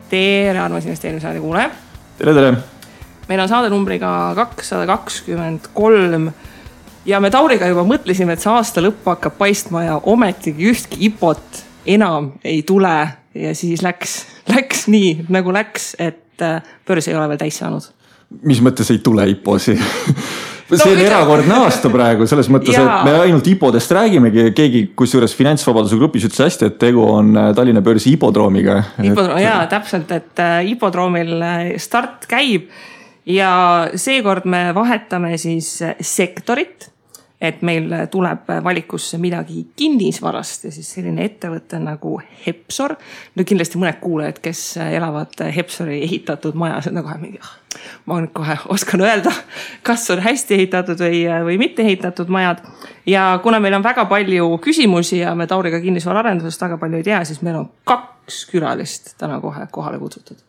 Tere, armas investeerimissaade kuulaja. Tere. Meil on saade numbriga 223 ja me Tauriga juba mõtlesime, et see aasta lõpp hakkab paistma ja ometigi ühtki IPO-t enam ei tule ja siis läks nii nagu läks, et börs ei ole veel täis saanud. Mis mõttes ei tule IPO-si? See on erakordne aasta praegu, selles mõttes, et me ainult IPO-dest räägimegi. Keegi, kusjuures Finantsvabaduse grupis ütles hästi, et tegu on Tallinna börsi IPO-droomiga. Jaa, täpselt, et IPO-droomil start käib ja seekord me vahetame siis sektorit, et meil tuleb valikusse midagi kinnisvarast ja siis selline ettevõte nagu Hepsor. No kindlasti mõned kuulajad, kes elavad Hepsori ehitatud majas, on kohe mingi, ma nüüd kohe oskan öelda, kas on hästi ehitatud või mitte ehitatud majad. Ja kuna meil on väga palju küsimusi ja me Tauriga kinnisvaraarendusest väga palju ei tea, siis meil on 2 külalist täna kohe kohale kutsutud.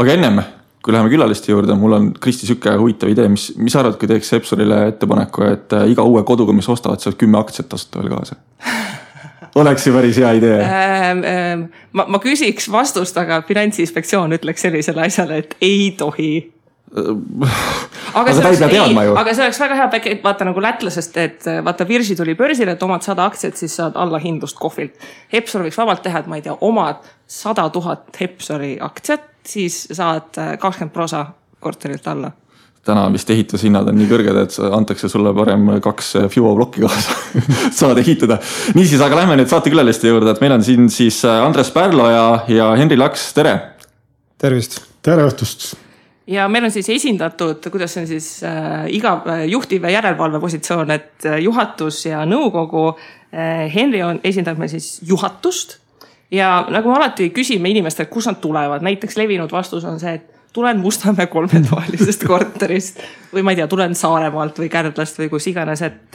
Aga ennem, kui läheme külaliste juurde, mul on Kristi Sükke huvitav idee, mis arvad, kui teeks Hepsorile ettepaneku, et iga uue koduga, mis ostavad, saab 10 aktsiat tasuta veel kaasa? Oleks ju päris hea idee. Ma küsiks vastust, aga Finantsinspektsioon ütleks sellisele asjale, et ei tohi. Aga see oleks väga hea, vaata nagu lätlasest, et vaata Virsi tuli börsile, et omad 100 aktsiat, siis saad alla hindlust kohvilt. Hepsor võiks vabalt teha, et ma ei tea, omad 100 000 Hepsori aktsiat, siis saad 20% korterilt alla. Täna vist ehitushinnad on nii kõrged, et antakse sulle parem 2 FIBO blokki kaasa saad ehitada. Niisiis, aga lähme nüüd saate külaliste juurde, et meil on siin siis Andres Pärlo ja Henri Laks, tere! Tervist! Tere õhtust! Ja meil on siis esindatud, kuidas on siis iga juhtiv järelevalve positsioon, et juhatus ja nõukogu. Henri esindab meil siis juhatust ja nagu me alati küsime inimestelt, kus nad tulevad. Näiteks levinud vastus on see, et tulen Mustamäe 3-toalisest korterist või ma ei tea, tulen Saaremaalt või Kärdlast või kus iganes. Et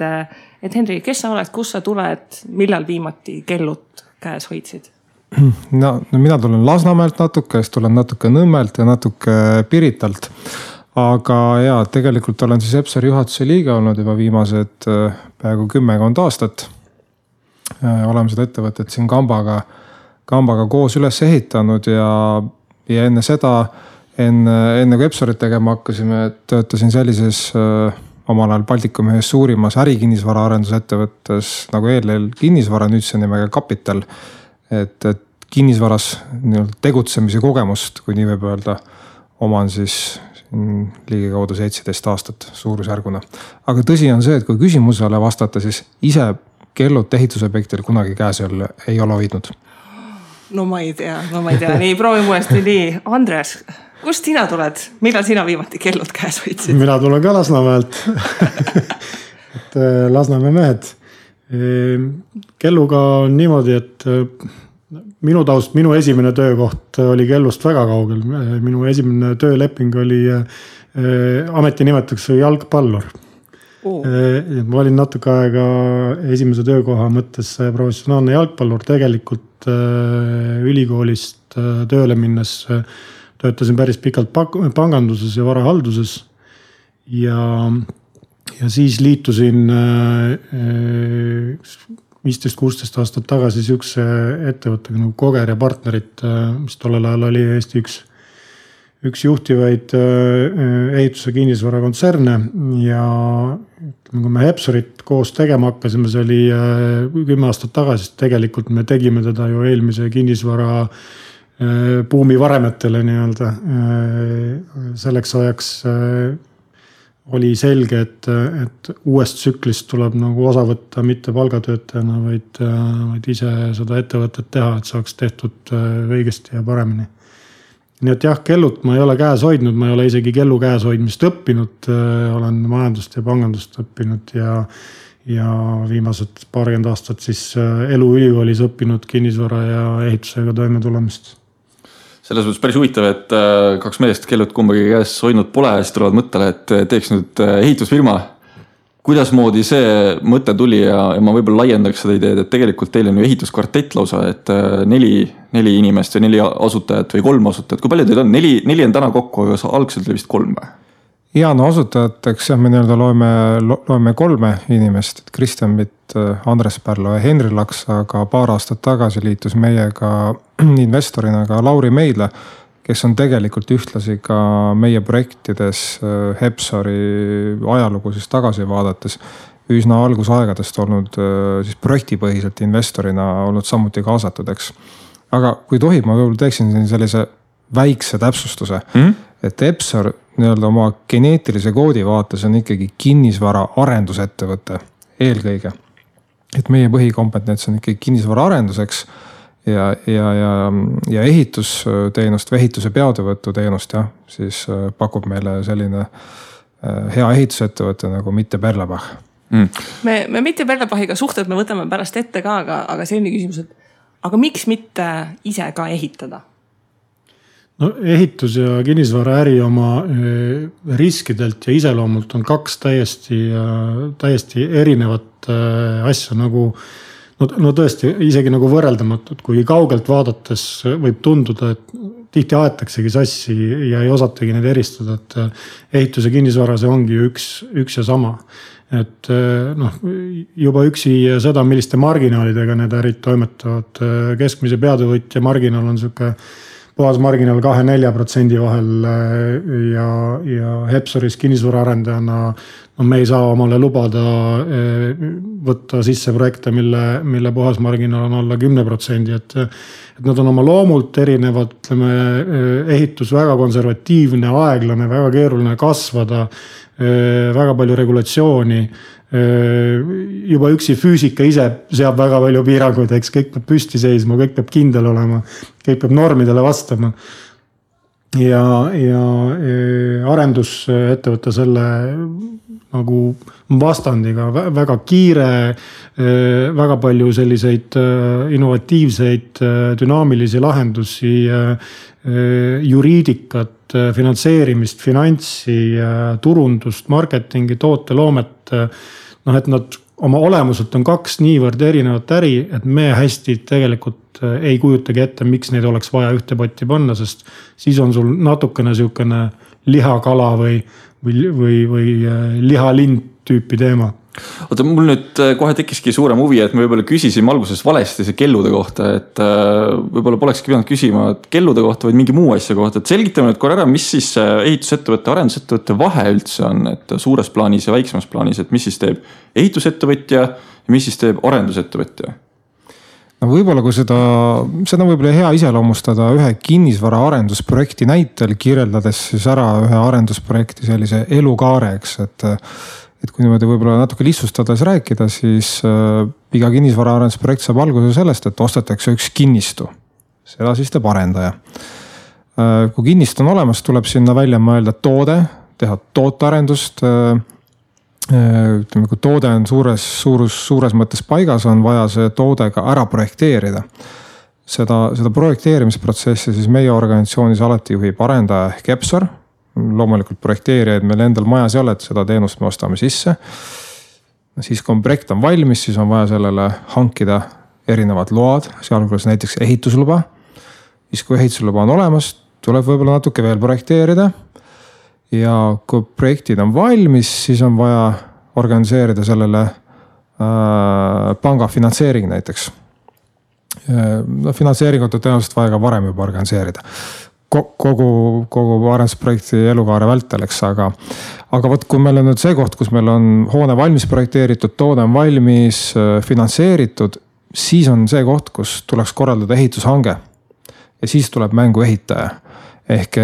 Henri, kes sa oled, kus sa tuled, millal viimati kellut käes hoidsid? No mina tulen Lasnamäelt natuke, siis tulen natuke Nõmmelt ja natuke Piritalt. Aga jaa, tegelikult olen siis Hepsori juhatuse liige olnud juba viimased peaaegu 10 aastat. Oleme seda ettevõtet siin Kambaga koos üles ehitanud ja enne seda, enne kui Hepsorit tegema hakkasime, töötasin sellises omal ajal Baltikumi ühes suurimas ärikinnisvara arendusettevõttes nagu ELL kinnisvara, nüüd see nimega Kapital. Et kinnisvaras tegutsemise kogemust, kui nii võib öelda, oman siis ligikaudu 17 aastat suurusjärguna. Aga tõsi on see, et kui küsimusele vastata, siis ise kellut ehitusobjektil kunagi käes ei ole hoidnud. No ma ei tea. Nii, proovime uuesti nii. Andres, kust sina tuled? Millal sina viimati kellud käes hoidsid? Mina tulen ka Lasnamäelt. Et Lasnamäe mehed. Kelluga on niimoodi, et minu esimene töökoht oli kellust väga kaugel. Minu esimene tööleping oli ametinimetuseks jalgpallur. Ma olin natuke aega esimese töökoha mõttes professionaalne jalgpallur. Tegelikult ülikoolist tööle minnes töötasin päris pikalt panganduses ja varahalduses ja siis liitusin 15-16 aastat tagasi sihukese ettevõttega nagu Koger ja partnerid, mis tollel ajal oli Eesti üks juhtivaid ehituse kinnisvara kontserne ja kui me Hepsorit koos tegema hakkasime, see oli 10 aastat tagasi, tegelikult me tegime teda ju eelmise kinnisvara buumi varemetele nii-öelda. Selleks ajaks oli selge, et uuest tsüklist tuleb nagu osa võtta mitte palgatöötajana, vaid ise seda ettevõtet teha, et saaks tehtud õigesti ja paremini. Nii et jah, kellut ma ei ole käes hoidnud, ma ei ole isegi kellu käes hoidmist õppinud, olen majandust ja pangandust õppinud ja viimased 20 aastat siis elu ülikoolis õppinud kinnisvara ja ehitusega toime tulemist. Selles mõttes päris huvitav, et 2 meest kellut kumbagi käes hoidnud pole ja siis tulevad mõttele, et teeks nüüd ehitusfirma. Kuidas moodi see mõte tuli ja ma võib-olla laiendaks seda ideed, et tegelikult teil on ju ehituskvartett lausa, et 4 inimest või 4 asutajat või 3 asutajat. Kui palju teil on? 4 on täna kokku, aga algselt oli vist 3 või? Ja no asutajateks me nii-öelda loeme 3 inimest, et Kristjan Mitt, Andres Pärlo ja Henri Laks, aga paar aastat tagasi liitus meiega investorina ka Lauri Meidla, kes on tegelikult ühtlasi ka meie projektides Hepsori ajalugu siis tagasi vaadates üsna algusaegadest olnud siis projektipõhiselt investorina olnud samuti kaasatud, eks. Aga kui tohib, ma võib-olla teeksin sellise väikse täpsustuse, et Hepsor nii-öelda oma geneetilise koodi vaates on ikkagi kinnisvara arendusettevõte eelkõige. Et meie põhikompetents on ikkagi kinnisvara arenduseks ja ehitusteenust või ehituse peatövõtu teenust, siis pakub meile selline hea ehitusettevõte nagu Mitte Perlebach. Me Mitte Perlebachiga suhted me võtame pärast ette ka, aga selline küsimus, et aga miks mitte ise ka ehitada? No ehitus ja kinnisvaraäri oma riskidelt ja iseloomult on 2 täiesti erinevat asja nagu, no tõesti isegi nagu võrreldamatud, kui kaugelt vaadates võib tunduda, et tihti aetaksegi sassi ja ei osatagi neid eristada, et ehitus ja kinnisvara see ongi üks ja sama. Et juba üksi seda, milliste marginaalidega need ärid toimetavad, keskmise peatövõtja marginaal on siuke puhas marginaal 2-4% vahel ja Hepsoris kinnisvaraarendajana me ei saa omale lubada võtta sisse projekte, mille puhas marginaal on alla 10%, et nad on oma loomult erinevad, ütleme, ehitus väga konservatiivne, aeglane, väga keeruline kasvada, väga palju regulatsiooni. Juba üksi füüsika ise seab väga palju piiranguid, eks kõik peab püsti seisma, kõik peab kindel olema, kõik peab normidele vastama. Ja arendusettevõte selle nagu vastandiga, väga kiire, väga palju selliseid innovatiivseid, dünaamilisi lahendusi, juriidikat, finantseerimist, finantsi, turundust, marketingi, tooteloomet, et nad oma olemuselt on 2 niivõrd erinevat äri, et me hästi tegelikult ei kujutagi ette, miks neid oleks vaja ühte potti panna, sest siis on sul natukene siukene lihakala või lihalind tüüpi teema. Oota, mul nüüd kohe tekkiski suurem huvi, et me võib-olla küsisime alguses valesti see kellude kohta, et võib-olla polekski pidanud küsima kellude kohta, vaid mingi muu asja kohta. Et selgitame nüüd korra ära, mis siis ehitusettevõtte, arendusettevõtte vahe üldse on, et suures plaanis ja väiksemas plaanis, et mis siis teeb ehitusettevõtja ja mis siis teeb arendusettevõtja? No võib-olla kui seda võib-olla hea iseloomustada ühe kinnisvara arendusprojekti näitel, kirjeldades siis ära ühe arendusprojekti sellise elukaareks, et kui niimoodi võib-olla natuke lihtsustades rääkida, siis iga kinnisvara arendusprojekt saab alguse sellest, et ostetakse üks kinnistu. Seda siis teeb arendaja. Kui kinnistu on olemas, tuleb sinna välja mõelda toode, teha tootearendust. Ütleme, kui toode on suures mõttes paigas, on vaja see toode ka ära projekteerida. Seda projekteerimisprotsessi siis meie organisatsioonis alati juhib arendaja ehk Hepsor. Loomulikult projekteerijaid meil endal majas ei ole, et seda teenust me ostame sisse. Siis kui projekt on valmis, siis on vaja sellele hankida erinevad load, sealhulgas näiteks ehitusluba. Siis kui ehitusluba on olemas, tuleb võib-olla natuke veel projekteerida. Ja kui projektid on valmis, siis on vaja organiseerida sellele panga finantseering näiteks. Finantseeringut on tõenäoliselt vaja ka varem juba organiseerida. Kogu arendusprojekti elukaare välteleks, aga võt, kui meil on nüüd see koht, kus meil on hoone valmis projekteeritud, toode on valmis finantseeritud, siis on see koht, kus tuleks korraldada ehitushange ja siis tuleb mängu ehitaja. Ehk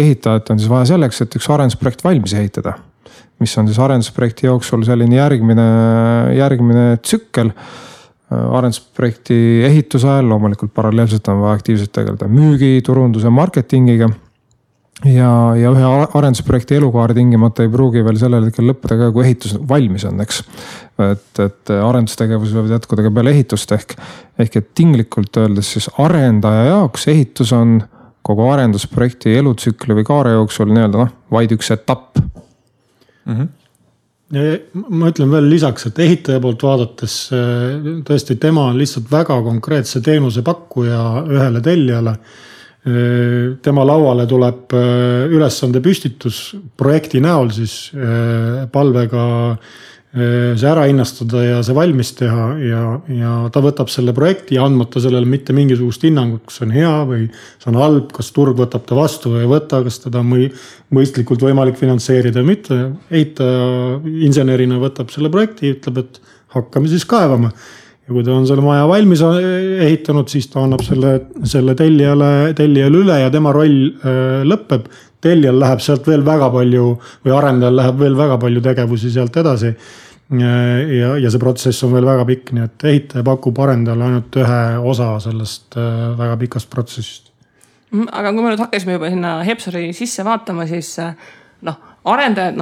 ehitajat on siis vaja selleks, et üks arendusprojekt valmis ehitada, mis on siis arendusprojekti jooksul selline järgmine tsükkel. Arendusprojekti ehituse ajal loomulikult paralleelselt on vaja aktiivselt tegeleda müügi, turunduse, marketingiga ja ühe arendusprojekti elukaar tingimata ei pruugi veel sellel hetkel lõppeda ka, kui ehitus valmis on, eks. Et arendustegevus võivad jätkuda ka peale ehitust ehk et tinglikult öeldes siis arendaja jaoks ehitus on kogu arendusprojekti elutsükli või kaare jooksul nii-öelda vaid üks etapp. Ma ütlen veel lisaks, et ehitaja poolt vaadates tõesti tema on lihtsalt väga konkreetse teenuse pakkuja ühele tellijale. tema lauale tuleb ülesande püstitus projekti näol siis palvega see ära hinnastada ja see valmis teha ja ta võtab selle projekti andmata sellele mitte mingisugust hinnangut, kas on hea või see on halb, kas turg võtab ta vastu või ei võta, kas teda mõistlikult võimalik finantseerida või mitte. Ehitaja insenerina võtab selle projekti, ütleb, et hakkame siis kaevama. Ja kui ta on selle maja valmis ehitanud, siis ta annab selle tellijale üle ja tema roll lõpeb. Tellijal läheb sealt veel väga palju või arendajal läheb veel väga palju tegevusi sealt edasi. Ja see protsess on veel väga pikk, nii et ehitaja pakub arendajale ainult ühe osa sellest väga pikast protsessist. Aga kui me nüüd hakkasime juba sinna Hepsori sisse vaatama, siis arendajad,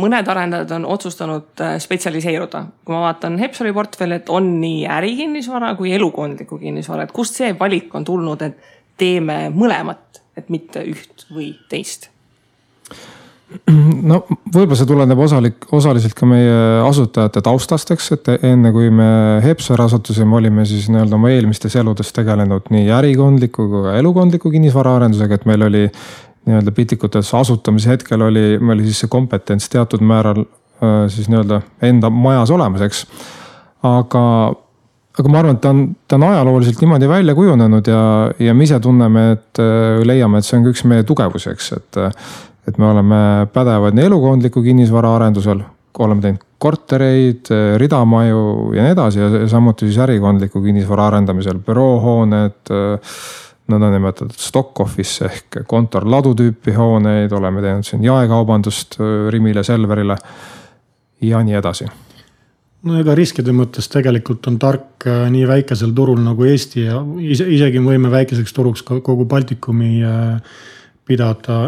mõned arendajad on otsustanud spetsialiseeruda. Kui ma vaatan Hepsori portfelli, et on nii ärikinnisvara kui elukondliku kinnisvara, et kust see valik on tulnud, et teeme mõlemat, et mitte üht või teist? No võib-olla see tuleneb osaliselt ka meie asutajate taustasteks, et enne kui me Hepsor asutusime, olime siis nii-öelda oma eelmistes eludes tegelenud nii ärikondliku kui ka elukondliku kinnisvara arendusega, et meil oli nii-öelda pitikutes asutamise hetkel oli siis see kompetents teatud määral siis nii-öelda enda majas olemas, eks. Aga ma arvan, et ta on ajalooliselt niimoodi välja kujunenud ja me ise tunneme, et leiame, et see on üks meie tugevusi, eks, et me oleme pädevad nii elukondliku kinnisvara arendusel, oleme teinud kortereid, ridamaju ja nii edasi ja samuti siis ärikondliku kinnisvara arendamisel büroohooned, nõndanimetatud stock office ehk kontorladu tüüpi hooneid, oleme teinud siin jaekaubandust Rimile, Selverile ja nii edasi. No ega riskide mõttes tegelikult on tark nii väikesel turul nagu Eesti ja isegi võime väikeseks turuks kogu Baltikumi pidada,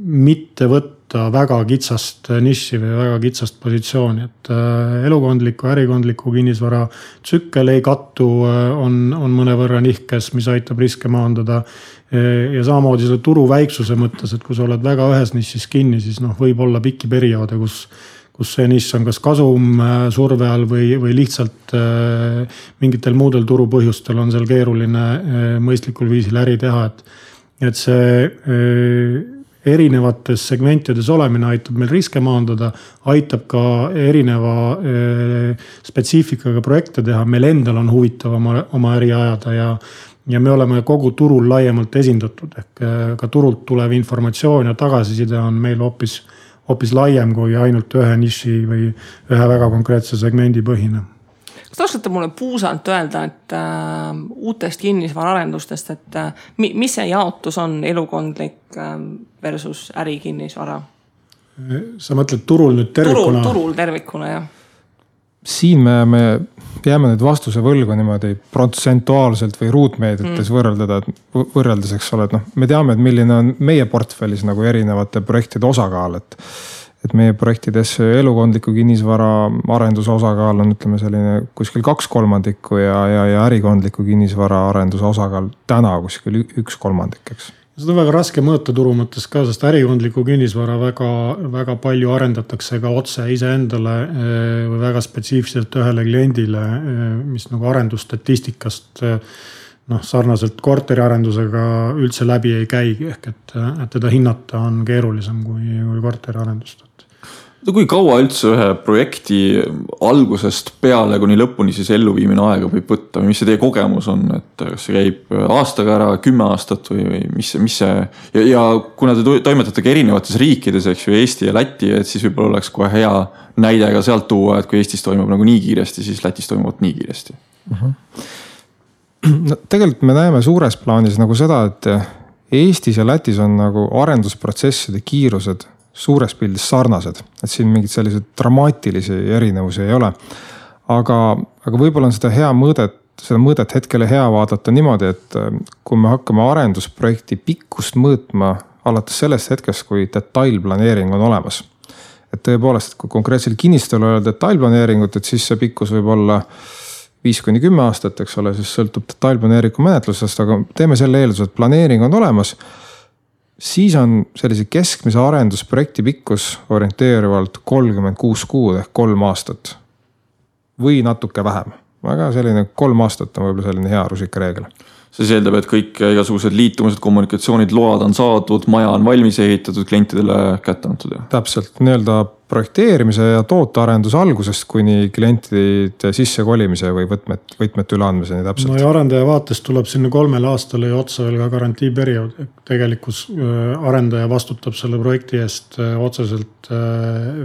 mitte võtta väga kitsast niši või väga kitsast positsiooni, et elukondliku, ärikondliku kinnisvara tsükkel ei kattu, on mõnevõrra nihkes, mis aitab riske maandada ja samamoodi selle turu väiksuse mõttes, et kui sa oled väga ühes nišis kinni, siis võib olla pikki perioode, kus see nišš on kas kasum surve all või lihtsalt mingitel muudel turupõhjustel on seal keeruline mõistlikul viisil äri teha, et see erinevates segmentides olemine aitab meil riske maandada, aitab ka erineva spetsiifikaga projekte teha, meil endal on huvitav oma äri ajada ja me oleme kogu turul laiemalt esindatud, ehk ka turult tulev informatsioon ja tagasiside on meil hoopis laiem kui ainult ühe niši või ühe väga konkreetse segmendi põhine. Kas te oskate mulle puusalt öelda, et uutest kinnisvaraarendustest, et mis see jaotus on elukondlik versus ärikinnisvara? Sa mõtled turul nüüd tervikuna? Turul tervikuna, jah. Siin me jääme nüüd vastuse võlgu niimoodi protsentuaalselt või ruutmeetrites võrreldes, eks ole, et me teame, et milline on meie portfellis nagu erinevate projektide osakaal, et meie projektides elukondliku kinnisvara arenduse osakaal on, ütleme, selline kuskil 2/3 ja ärikondliku kinnisvara arenduse osakaal täna kuskil 1/3, eks. Seda on väga raske mõõta turu mõttes ka, sest ärikondliku kinnisvara väga palju arendatakse ka otse iseendale või väga spetsiifiliselt ühele kliendile, mis nagu arendusstatistikast sarnaselt korteriarendusega üldse läbi ei käi, ehk et teda hinnata on keerulisem kui korteriarendust. Kui kaua üldse ühe projekti algusest peale kuni lõpuni siis elluviimine aega võib võtta või mis see teie kogemus on, et kas see käib aastaga ära 10 aastat või mis see ja kuna te toimetate ka erinevates riikides, eks ju, Eesti ja Läti, et siis võib-olla oleks kohe hea näide ka sealt tuua, et kui Eestis toimub nagu nii kiiresti, siis Lätis toimub nii kiiresti. No, tegelikult me näeme suures plaanis nagu seda, et Eestis ja Lätis on nagu arendusprotsesside kiirused suures pildis sarnased, et siin mingid sellised dramaatilisi erinevusi ei ole. Aga võib-olla on seda mõõdet hetkele hea vaadata niimoodi, et kui me hakkame arendusprojekti pikkust mõõtma alates sellest hetkest, kui detailplaneering on olemas. Et tõepoolest, kui konkreetsel kinnistul on detailplaneeringut, et siis see pikkus võib olla 5-10 aastat, eks ole, siis sõltub detailplaneeringu menetlusest, aga teeme selle eelduse, et planeering on olemas. Siis on sellise keskmise arendusprojekti pikkus orienteeruvalt 36 kuud ehk 3 aastat või natuke vähem. Aga selline 3 aastat on võib-olla selline hea rusikareegel. see eeldab, et kõik igasugused liitumused, kommunikatsioonid, load on saadud, maja on valmis ehitatud, klientidele kätte antud. Täpselt, nii-öelda projekteerimise ja tootearenduse algusest kuni klientide sissekolimise või võtmete üleandmiseni täpselt. No ja arendaja vaatest tuleb sinna 3 aastale ja otsa veel ka garantiiperiood. Tegelikus arendaja vastutab selle projekti eest otseselt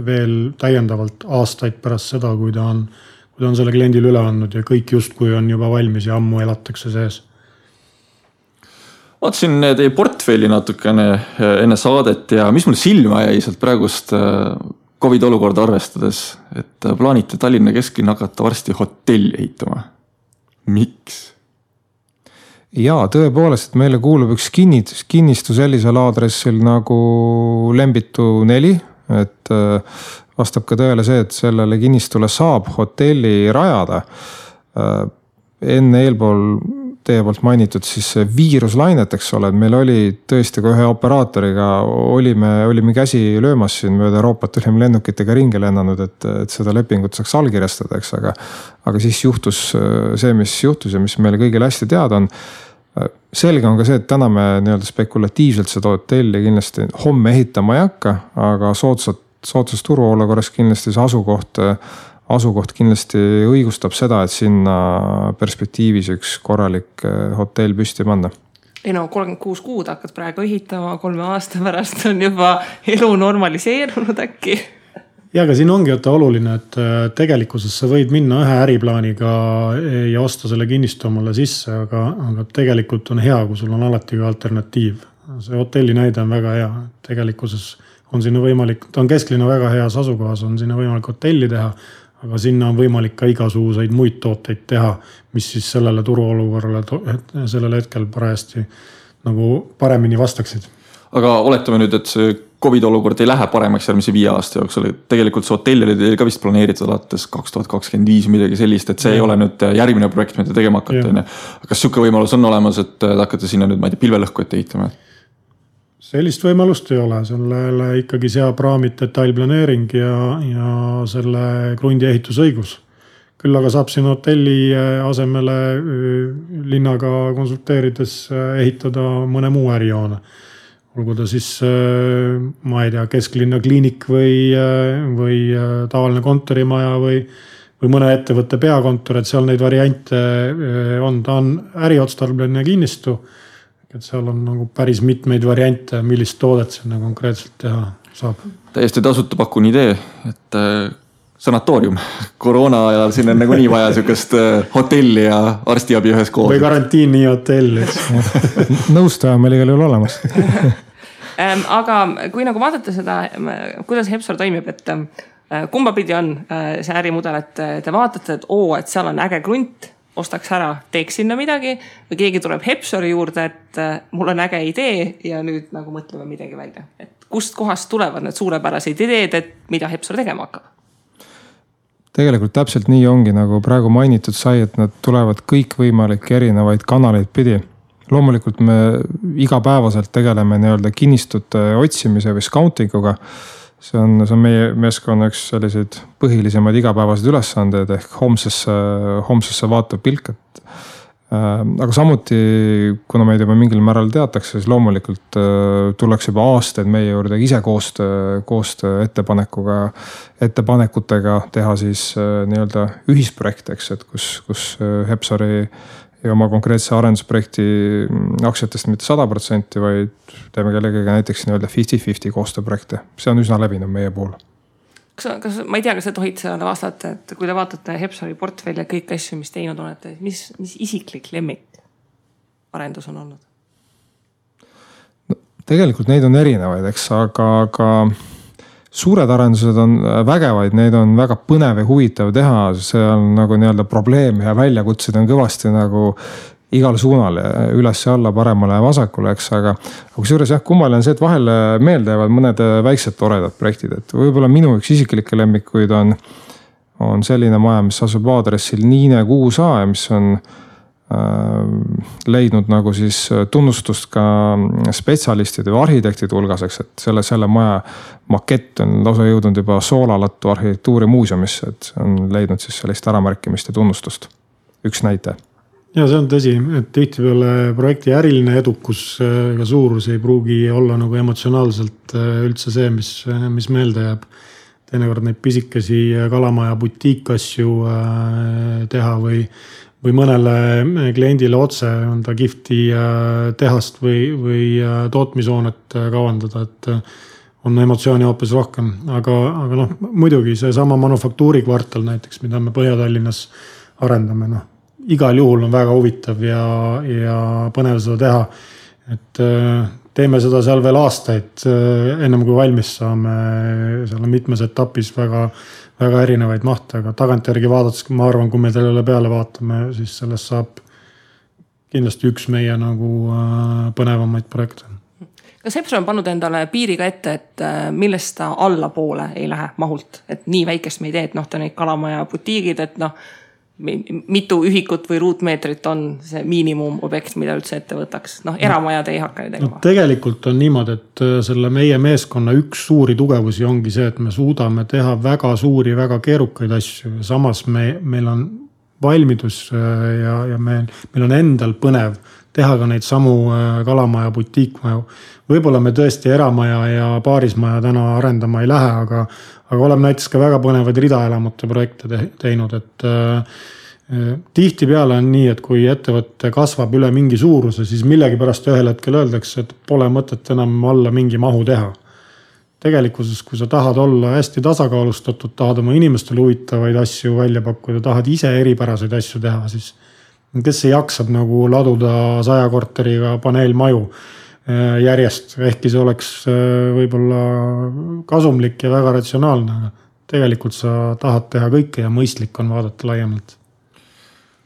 veel täiendavalt aastaid pärast seda, kui ta on selle kliendile üle andnud ja kõik justkui on juba valmis ja ammu elatakse sees. Vaatasin teie portfelli natukene enne saadet ja mis mulle silma jäi sealt praegust COVID olukorda arvestades, et plaanite Tallinna kesklinna hakata varsti hotelli ehitama. Miks? Jaa, tõepoolest, et meile kuulub üks kinnistu sellisel aadressil nagu Lembitu 4, et vastab ka tõele see, et sellele kinnistule saab hotelli rajada. Enne eelpool teie poolt mainitud siis viiruslainet, eks ole, et meil oli tõesti ka ühe operaatoriga, olime käsi löömas siin mööda Euroopat, olime lennukitega ringi lennanud, et seda lepingut saaks allkirjastada, eks, aga siis juhtus see, mis juhtus ja mis meile kõigile hästi teada on. Selge on ka see, et täna me nii-öelda spekulatiivselt seda hotelli kindlasti homme ehitama ei hakka, aga soodsas turuolukorras kindlasti see asukoht kindlasti õigustab seda, et sinna perspektiivis üks korralik hotell püsti panna. Ei no 36 kuud hakkad praegu ehitama, 3 aasta pärast on juba elu normaliseerunud äkki. Ja aga siin ongi oluline, et tegelikkuses sa võid minna ühe äriplaaniga ja osta selle kinnistu omale sisse, aga tegelikult on hea, kui sul on alati ka alternatiiv. See hotelli näide on väga hea. Tegelikkuses on sinna võimalik, ta on kesklinna väga heas asukohas, on sinna võimalik hotelli teha, aga sinna on võimalik ka igasuguseid muid tooteid teha, mis siis sellele turuolukorrale sellel hetkel parajasti nagu paremini vastaksid. Aga oletame nüüd, et see COVID olukord ei lähe paremaks järgmise 5 aasta jooksul. Tegelikult see hotell oli teil ka vist planeeritud alates 2025 midagi sellist, et see ei ole nüüd järgmine projekt, mida tegema hakata. Kas siuke võimalus on olemas, et hakkate sinna nüüd, ma ei tea, pilvelõhku ette ehitama? Sellist võimalust ei ole, sellele ikkagi seab raamid detailplaneering ja selle krundi ehitusõigus. Küll aga saab siin hotelli asemele linnaga konsulteerides ehitada mõne muu ärijoone. Olgu ta siis, ma ei tea, kesklinna kliinik või tavaline kontorimaja või mõne ettevõtte peakontor, et seal neid variante on. Ta on äriotstarbline kinnistu. Et seal on nagu päris mitmeid variante, millist toodet sinna konkreetselt teha saab. Täiesti tasuta pakun idee, et sanatoorium. Koroona ajal siin on nagu nii vaja sükest hotelli ja arstiabi ühes koos. Või karantiini hotell. Nõustaja meil igal juhul olemas. Aga kui nagu vaadata seda, kuidas Hepsor toimib, et kumba pidi on see ärimudel, et te vaatate, et seal on äge krunt, ostaks ära, teeks sinna midagi või keegi tuleb Hepsori juurde, et mul on äge idee ja nüüd nagu mõtleme midagi välja. Et kust kohast tulevad need suurepärased ideed, et mida Hepsor tegema hakkab? Tegelikult täpselt nii ongi, nagu praegu mainitud sai, et nad tulevad kõik võimalik erinevaid kanaleid pidi. Loomulikult me igapäevaselt tegeleme nii-öelda kinnistute otsimise või scoutinguga. See on meie meeskonna üks selliseid põhilisemaid igapäevased ülesanded ehk homsesse vaatav pilk. Aga samuti, kuna meid juba mingil määral teatakse, siis loomulikult tullakse juba aastaid meie juurde ise koostöö ettepanekutega teha siis nii-öelda ühisprojekteks, et kus Hepsori ja oma konkreetse arendusprojekti aktsiatest mitte 100%, vaid teeme kellegagi näiteks nii-öelda 50-50 koostööprojekte. See on üsna levinud meie puhul. Ma ei tea, kas te tohid seda vastata, et kui te vaatate Hepsori portfelli ja kõik asju, mis teinud olete, mis isiklik lemmik arendus on olnud? No, tegelikult neid on erinevaid, eks, aga suured arendused on vägevaid, neid on väga põnev ja huvitav teha, see on nagu nii-öelda probleem ja väljakutsid on kõvasti nagu igal suunal, üles ja alla, paremale ja vasakule, eks, aga kusjuures jah, kummaline on see, et vahel meelde jäävad mõned väiksed toredad projektid, et võib-olla minu üks isiklikke lemmikuid on selline maja, mis asub aadressil Niine 6A ja mis on leidnud nagu siis tunnustust ka spetsialistide või arhitektide hulgaseks, et selle maja makett on lausa jõudnud juba Soolalattu arhitektuurimuuseumisse, et on leidnud siis sellist äramärkimist ja tunnustust. Üks näite. Ja see on tõsi, et tihtipeale projekti äriline edukus ega suurus ei pruugi olla nagu emotsionaalselt üldse see, mis meelde jääb. Teinekord neid pisikesi kalamaja butiikasju teha või mõnele kliendile otse on ta kihvti tehast või tootmishoonet kavandada, et on emotsiooni hoopis rohkem. Aga muidugi see sama manufaktuurikvartal näiteks, mida me Põhja-Tallinnas arendame, igal juhul on väga huvitav ja põnev seda teha. Et teeme seda seal veel aastaid, ennem kui valmis saame. Seal on mitmes etapis väga erinevaid mahte, aga tagantjärgi vaadates, ma arvan, kui me sellele peale vaatame, siis sellest saab kindlasti üks meie nagu põnevamaid projekte. Kas Epson on pannud endale piiriga ette, et millest ta allapoole ei lähe mahult? Et nii väikest me ei tee, et ta neid kalamaja butiigid, et mitu ühikut või ruutmeetrit on see miinimumobjekt, mida üldse ette võtaks. Eramajad ei hakka tegema. Tegelikult on niimoodi, et selle meie meeskonna üks suuri tugevusi ongi see, et me suudame teha väga suuri, väga keerukaid asju. Samas meil on valmidus ja meil on endal põnev teha ka neid samu kalamaja butiikmaju. Võib-olla me tõesti eramaja ja paarismaja täna arendama ei lähe, aga oleme näiteks ka väga põnevaid ridaelamute projekte teinud, et tihtipeale on nii, et kui ettevõtte kasvab üle mingi suuruse, siis millegi pärast ühel hetkel öeldakse, et pole mõtet enam alla mingi mahu teha. Tegelikkuses, kui sa tahad olla hästi tasakaalustatud, tahad oma inimestele huvitavaid asju välja pakkuda, tahad ise eripäraseid asju teha, siis kes ei jaksab nagu laduda 100 korteriga paneelmaju järjest, ehkki see oleks võib-olla kasumlik ja väga ratsionaalne, aga tegelikult sa tahad teha kõike ja mõistlik on vaadata laiemalt.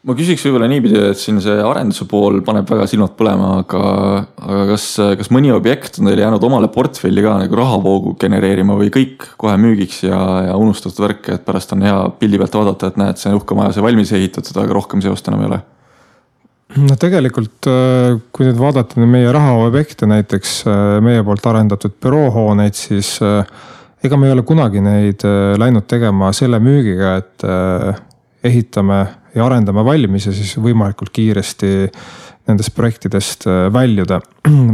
Ma küsiks võib-olla niipidi, et siin see arenduse pool paneb väga silmad põlema, aga kas mõni objekt on teile jäänud omale portfelli ka nagu rahavoogu genereerima või kõik kohe müügiks ja unustatud värk, et pärast on hea pildi pealt vaadata, et näed, see uhke maja, see valmis ehitatud, aga rohkem seost enam ei ole? Tegelikult, kui nüüd vaadata meie rahaobjekte, näiteks meie poolt arendatud büroohooneid, siis ega me ei ole kunagi neid läinud tegema selle müügiga, et ehitame ja arendame valmis ja siis võimalikult kiiresti nendest projektidest väljuda.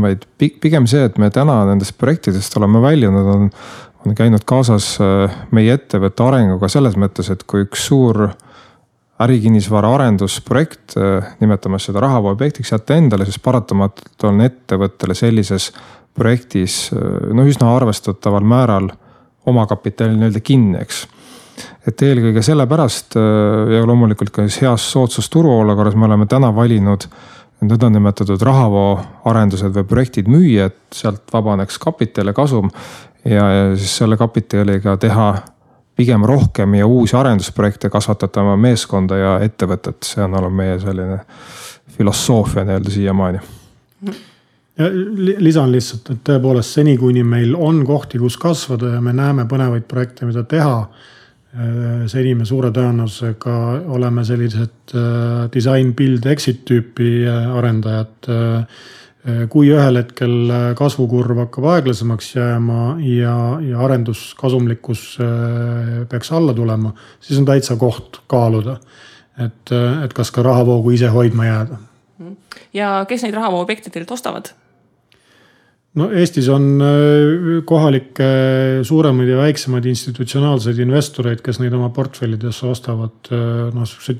Vaid pigem see, et me täna nendest projektidest oleme väljunud, on käinud kaasas meie ettevõtte arenguga selles mõttes, et kui üks suur ärikinnisvara arendusprojekt, nimetame seda rahavooobjektiks, jätta endale, siis paratamatult on ettevõttele sellises projektis üsna arvestataval määral omakapitali nii-öelda kinni, eks. Et eelkõige sellepärast ja loomulikult ka heas soodsas turuolukorras me oleme täna valinud nõndanimetatud rahavoo arendused või projektid müüa, et sealt vabaneks kapital ja kasum ja siis selle kapitaliga teha pigem rohkem ja uusi arendusprojekte kasvatada oma meeskonda ja ettevõtet. See on olnud meie selline filosoofia nii-öelda siiamaani. Ja lisan lihtsalt, et tõepoolest seni, kuni meil on kohti, kus kasvada ja me näeme põnevaid projekte, mida teha, seni me suure tõenäosusega oleme sellised design, build, exit tüüpi arendajad. Kui ühel hetkel kasvukurv hakkab aeglasemaks jääma ja arenduskasumlikkus peaks alla tulema, siis on täitsa koht kaaluda, et kas ka rahavoogu ise hoidma jääda. Ja kes neid rahavooobjekte teilt ostavad? Eestis on kohalikke suuremaid ja väiksemaid institutsionaalseid investoreid, kes neid oma portfellidesse ostavad,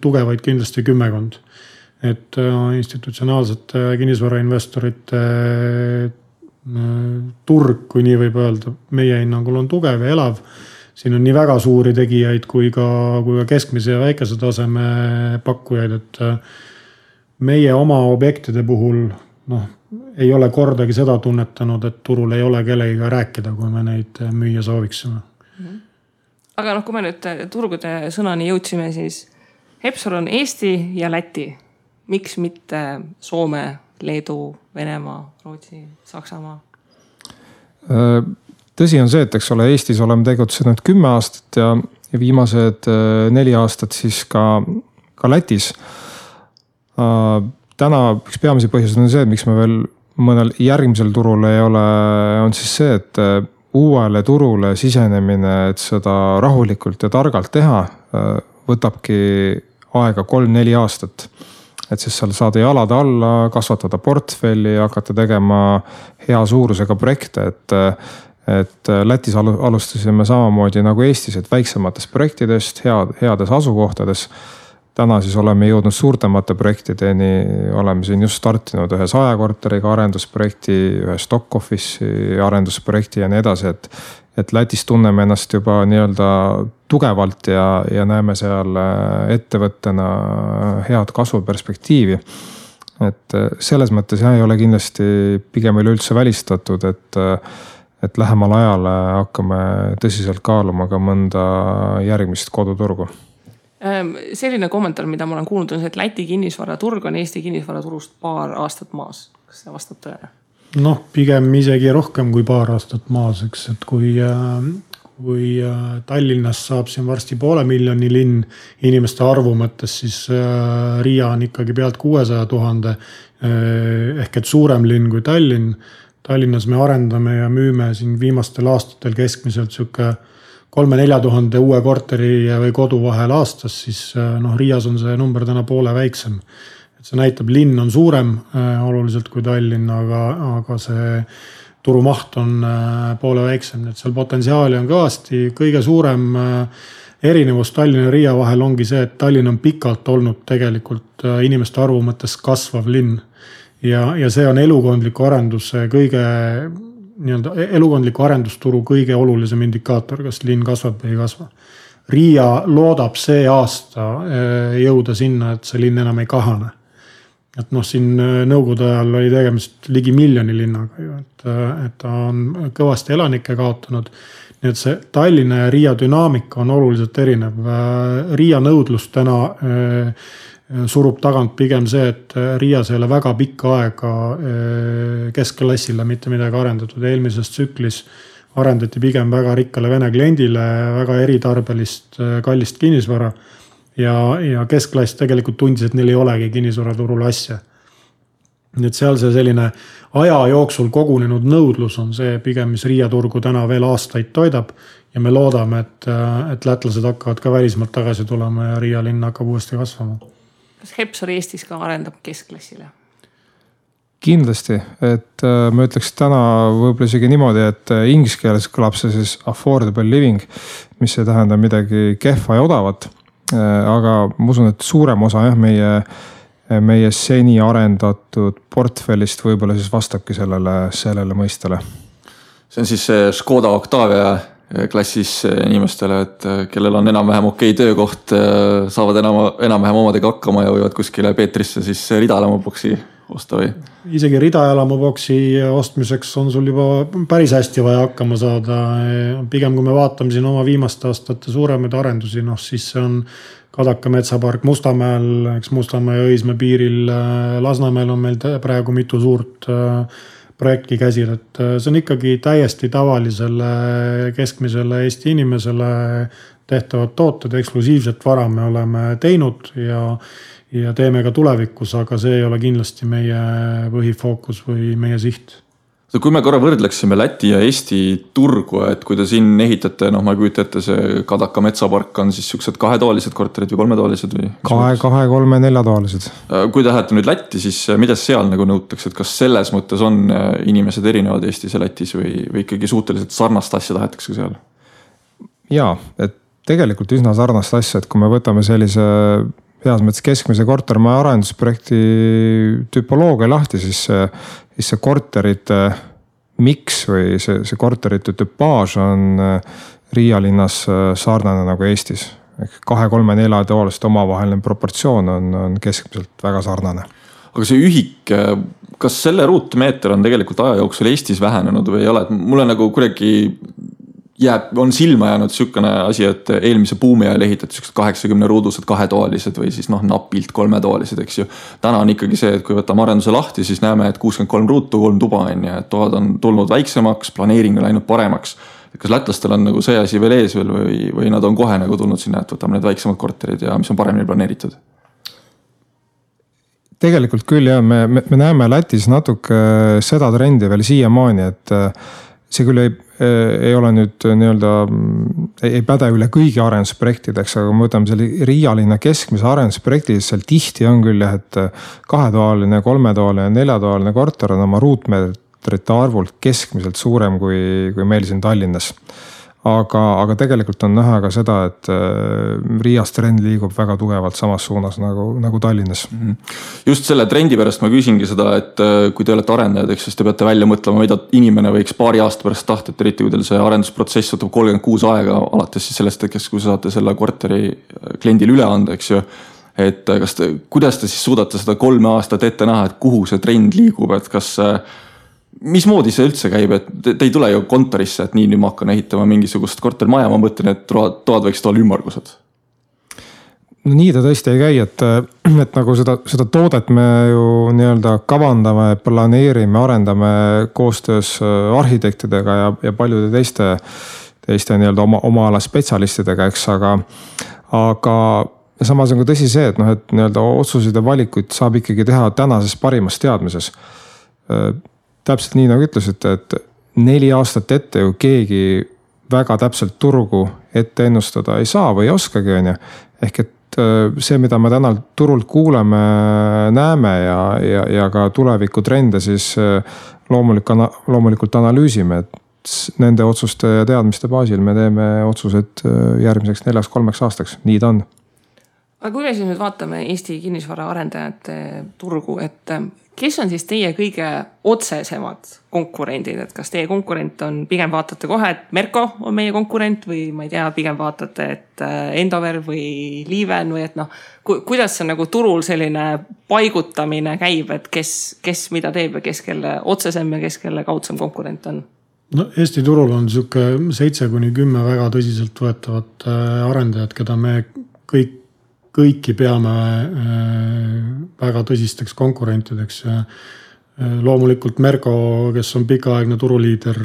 tugevaid kindlasti 10. Et institutsionaalsete kinnisvarainvestorite turg, kui nii võib öelda, meie hinnangul on tugev ja elav. Siin on nii väga suuri tegijaid kui ka keskmise ja väikese taseme pakkujaid, et meie oma objektide puhul ei ole kordagi seda tunnetanud, et turul ei ole kellegiga rääkida, kui me neid müüa sooviksime. Aga kui me nüüd turgude sõnani jõudsime, siis Epson on Eesti ja Läti. Miks mitte Soome, Leedu, Venemaa, Rootsi, Saksamaa? Tõsi on see, et eks ole, Eestis oleme tegutsenud 10 aastat ja viimased 4 aastat siis ka Lätis. Täna üks peamisi põhjuseid on see, et miks me veel mõnel järgmisel turul ei ole, on siis see, et uuele turule sisenemine, et seda rahulikult ja targalt teha, võtabki aega 3-4 aastat. et siis seal saada jalad alla, kasvatada portfelli ja hakata tegema hea suurusega projekte, et Lätis alustasime samamoodi nagu Eestis, et väiksematest projektidest, heades asukohtades. Täna siis oleme jõudnud suurtemate projektideni, oleme siin just startinud ühe 100 korteriga arendusprojekti, ühe stock office'i arendusprojekti ja nii edasi, et Lätis tunneme ennast juba nii-öelda tugevalt ja näeme seal ettevõttena head kasvuperspektiivi. Et selles mõttes ei ole kindlasti pigem üleüldse välistatud, et lähemal ajal hakkame tõsiselt kaaluma ka mõnda järgmist koduturgu. Selline kommentaar, mida ma olen kuulnud, on see, et Läti kinnisvaraturg on Eesti kinnisvaraturust paar aastat maas. Kas see vastab tõele? Pigem isegi rohkem kui paar aastat maas, eks, et kui Tallinnas saab siin varsti 500 000 linn inimeste arvu mõttes, siis Riia on ikkagi pealt 600 000 ehk et suurem linn kui Tallinn. Tallinnas me arendame ja müüme siin viimastel aastatel keskmiselt siuke 3-4 tuhande uue korteri või kodu vahel aastas, siis Riias on see number täna poole väiksem. Et see näitab, linn on suurem oluliselt kui Tallinn, aga see turumaht on poole väiksem. Et seal potentsiaali on kõvasti. Kõige suurem erinevus Tallinna ja Riia vahel ongi see, et Tallinn on pikalt olnud tegelikult inimeste arvu mõttes kasvav linn. Ja see on elukondliku arendusturu kõige olulisem indikaator, kas linn kasvab või ei kasva. Riia loodab see aasta jõuda sinna, et see linn enam ei kahane. Et siin nõukogude ajal oli tegemist ligi 1 miljoni linnaga, et ta on kõvasti elanikke kaotanud. Nii et see Tallinna ja Riia dünaamika on oluliselt erinev. Riia nõudlus täna surub tagant pigem see, et Riias ei ole väga pikka aega keskklassile mitte midagi arendatud. Eelmises tsüklis arendati pigem väga rikkale vene kliendile väga eritarbelist kallist kinnisvara ja keskklass tegelikult tundis, et neil ei olegi kinnisvaraturul asja. Nii et seal see selline aja jooksul kogunenud nõudlus on see pigem, mis Riia turgu täna veel aastaid toidab ja me loodame, et lätlased hakkavad ka välismaalt tagasi tulema ja Riia linn hakkab uuesti kasvama. Kas Hepsor Eestis ka arendab keskklassile? Kindlasti, et ma ütleks täna võib-olla isegi niimoodi, et inglise keeles kõlab see siis affordable living, mis ei tähenda midagi kehva ja odavat. Aga ma usun, et suurem osa meie seni arendatud portfellist võib-olla siis vastabki sellele mõistele. See on siis see Škoda Octavia klassis inimestele, et kellel on enam-vähem okei töökoht, saavad enam-vähem omadega hakkama ja võivad kuskile Peetrisse siis ridaelamuboksi osta või? Isegi ridaelamuboksi ostmiseks on sul juba päris hästi vaja hakkama saada. Pigem kui me vaatame siin oma viimaste aastate suuremaid arendusi, siis see on Kadaka metsapark Mustamäel, eks Mustamäe ja Õismäe piiril. Lasnamäel on meil praegu mitu suurt projekti käsil, et see on ikkagi täiesti tavalisele keskmisele Eesti inimesele tehtavad tooted, eksklusiivset vara me oleme teinud ja teeme ka tulevikus, aga see ei ole kindlasti meie põhifookus või meie siht. Kui me korra võrdleksime Läti ja Eesti turgu, et kui te siin ehitate, ma ei kujuta ette, see Kadaka metsapark on siis siuksed 2-toalised korterid või 3-toalised või? 2, 3, 4-toalised. Kui te lähete nüüd Lätti, siis mida seal nagu nõutakse, et kas selles mõttes on inimesed erinevad Eestis ja Lätis või ikkagi suhteliselt sarnast asja tahetakse seal? Jaa, et tegelikult üsna sarnast asja, et kui me võtame sellise heas mõttes keskmise kortermaja arendusprojekti tüpoloogia lahti, siis see korterite miks või see korterite tüpaaž on Riia linnas sarnane nagu Eestis. 2, 3, 4 toolist omavaheline proportsioon on keskmiselt väga sarnane. Aga see ühik, kas selle ruutmeeter on tegelikult aja jooksul Eestis vähenenud või ei ole? Mulle nagu kuidagi on silma jäänud sükane asi, et eelmise buumi ajal ehitati 80 ruudused 2-toalised või siis napilt 3-toalised, eks ju. Täna on ikkagi see, et kui võtame arenduse lahti, siis näeme, et 63 ruutu, 3 tuba on ja et toad on tulnud väiksemaks, planeering on läinud paremaks. Kas lätlastel on nagu see asi veel ees veel või nad on kohe nagu tulnud sinna, et võtame need väiksemad korterid ja mis on paremini planeeritud? Tegelikult küll jah, me näeme Lätis natuke seda trendi veel siiamaani, see küll ei ole nüüd nii-öelda, ei päde üle kõigi arendusprojektideks, aga kui me võtame selle Riia linna keskmise arendusprojektis, seal tihti on küll jah, et 2-toaline, 3-toaline, 4-toaline korter on oma ruutmeetrite arvult keskmiselt suurem kui meil siin Tallinnas. Aga tegelikult on näha ka seda, et Riias trend liigub väga tugevalt samas suunas nagu Tallinnas. Just selle trendi pärast ma küsingi seda, et kui te olete arendajad, siis te peate välja mõtlema, mida inimene võiks paari aasta pärast tahta, et eriti kui teil see arendusprotsess võtab 36 aega, alates siis sellest hetkest, kui saate selle korteri kliendile üle anda, eks ju. Et kuidas te siis suudate seda 3 aastat ette näha, et kuhu see trend liigub, et kas mismoodi see üldse käib, et te ei tule ju kontorisse, et nii nüüd ma hakkan ehitama mingisugust kortermaja, ma mõtlen, et toad võiks olla ümmargused. No nii ta tõesti ei käi, et nagu seda toodet me ju nii-öelda kavandame, planeerime, arendame koostöös arhitektidega ja paljude teiste nii-öelda oma ala spetsialistidega, eks, aga samas on ka tõsi see, et et nii-öelda otsuseid ja valikuid saab ikkagi teha tänases parimas teadmises. Täpselt nii nagu ütlesite, et 4 aastat ette ju keegi väga täpselt turgu ette ennustada ei saa või ei oskagi, on ju. Ehk et see, mida me täna turult kuuleme, näeme ja ka tuleviku trende, siis loomulikult analüüsime, et nende otsuste ja teadmiste baasil me teeme otsused järgmiseks 4-3 aastaks. Nii ta on. Aga kui me siis nüüd vaatame Eesti kinnisvara arendajate turgu, et kes on siis teie kõige otsesemad konkurendid, et kas teie konkurent on, pigem vaatate kohe, et Merko on meie konkurent või ma ei tea, pigem vaatate, et Endover või Liiven või et kuidas see nagu turul selline paigutamine käib, et kes mida teeb ja kes kelle otsesem ja kes kelle kaudsem konkurent on? No Eesti turul on siuke 7-10 väga tõsiselt võetavat arendajad, keda me kõiki peame väga tõsisteks konkurentideks. Loomulikult Merko, kes on pikaaegne turuliider,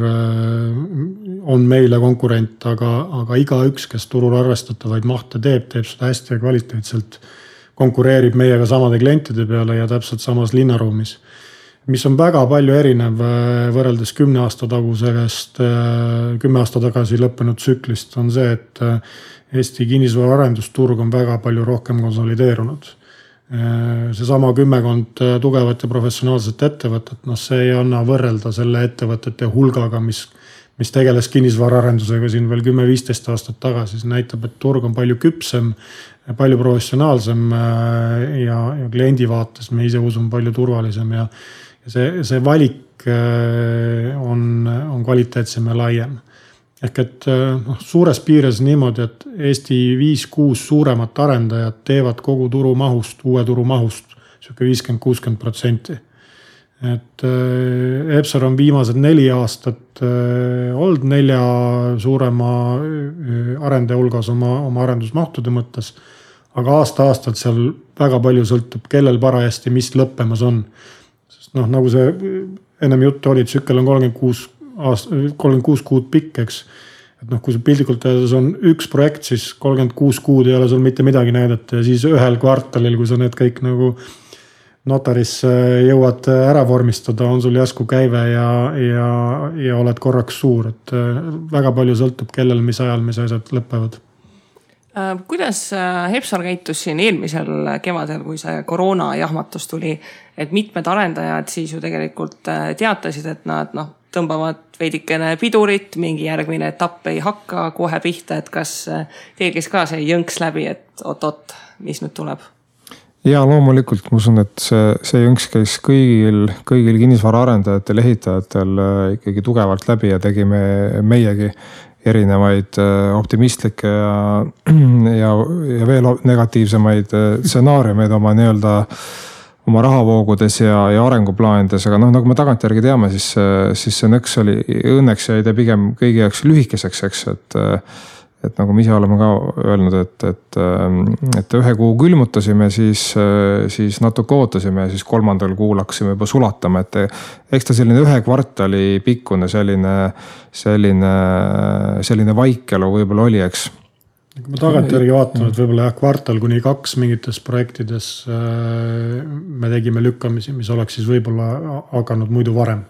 on meile konkurent, aga igaüks, kes turul arvestatavaid mahte teeb seda hästi ja kvaliteetselt, konkureerib meiega samade klientide peale ja täpselt samas linnaruumis. Mis on väga palju erinev võrreldes 10 aasta tagasi lõppenud tsüklist, on see, et Eesti kinnisvara arendusturg on väga palju rohkem konsolideerunud. See sama 10 tugevat ja professionaalset ettevõtet, see ei anna võrrelda selle ettevõtete hulgaga, mis tegeles kinnisvara arendusega siin veel 10-15 aastat tagasi. See näitab, et turg on palju küpsem, palju professionaalsem ja kliendi vaates me ise usume palju turvalisem ja see valik on kvaliteetsem ja laiem. Ehk et suures piires niimoodi, et Eesti 5-6 suuremat arendajat teevad kogu turu mahust, uue turu mahust, 50-60%. Et Epsor on viimased 4 aastat olnud 4 suurema arendaja hulgas oma arendusmahtude mõttes, aga aasta-aastalt seal väga palju sõltub, kellel parajasti mis lõppemas on. Sest nagu see ennem juttu oli, tsükkel on 36 kuud pikk, eks. Et kui see pildikult öeldes on üks projekt, siis 36 kuud ei ole sul mitte midagi näidata ja siis ühel kvartalil, kui sa need kõik nagu notaris jõuad ära vormistada, on sul jäsku käive ja oled korraks suur. Et väga palju sõltub, kellel mis ajal mis asjad lõpevad. Kuidas Epsor käitus siin eelmisel kevadel, kui see koroona jahmatus tuli, et mitmed arendajad siis ju tegelikult teatasid, et nad tõmbavad veidikene pidurit, mingi järgmine etapp ei hakka kohe pihta, et kas teil käis ka see jõnks läbi, et oot, mis nüüd tuleb? Ja loomulikult ma usun, et see jõnks käis kõigil kinnisvara arendajatel, ehitajatel ikkagi tugevalt läbi ja tegime meiegi erinevaid optimistlikke ja veel negatiivsemaid stsenaariumeid oma nii-öelda oma rahavoogudes ja arenguplaanides, aga nagu me tagantjärgi teame, siis see nõks oli õnneks jäi ta pigem kõigi jaoks lühikeseks, eks, et nagu me ise oleme ka öelnud, et 1 kuu külmutasime, siis natuke ootasime ja siis 3. kuul hakkasime juba sulatama, et eks ta selline 1 kvartali pikkune selline vaikelu võib-olla oli, eks. Kui me tagantjärgi vaatame, et võib-olla kvartal kuni 2 mingites projektides me tegime lükkamisi, mis oleks siis võib-olla hakanud muidu varem.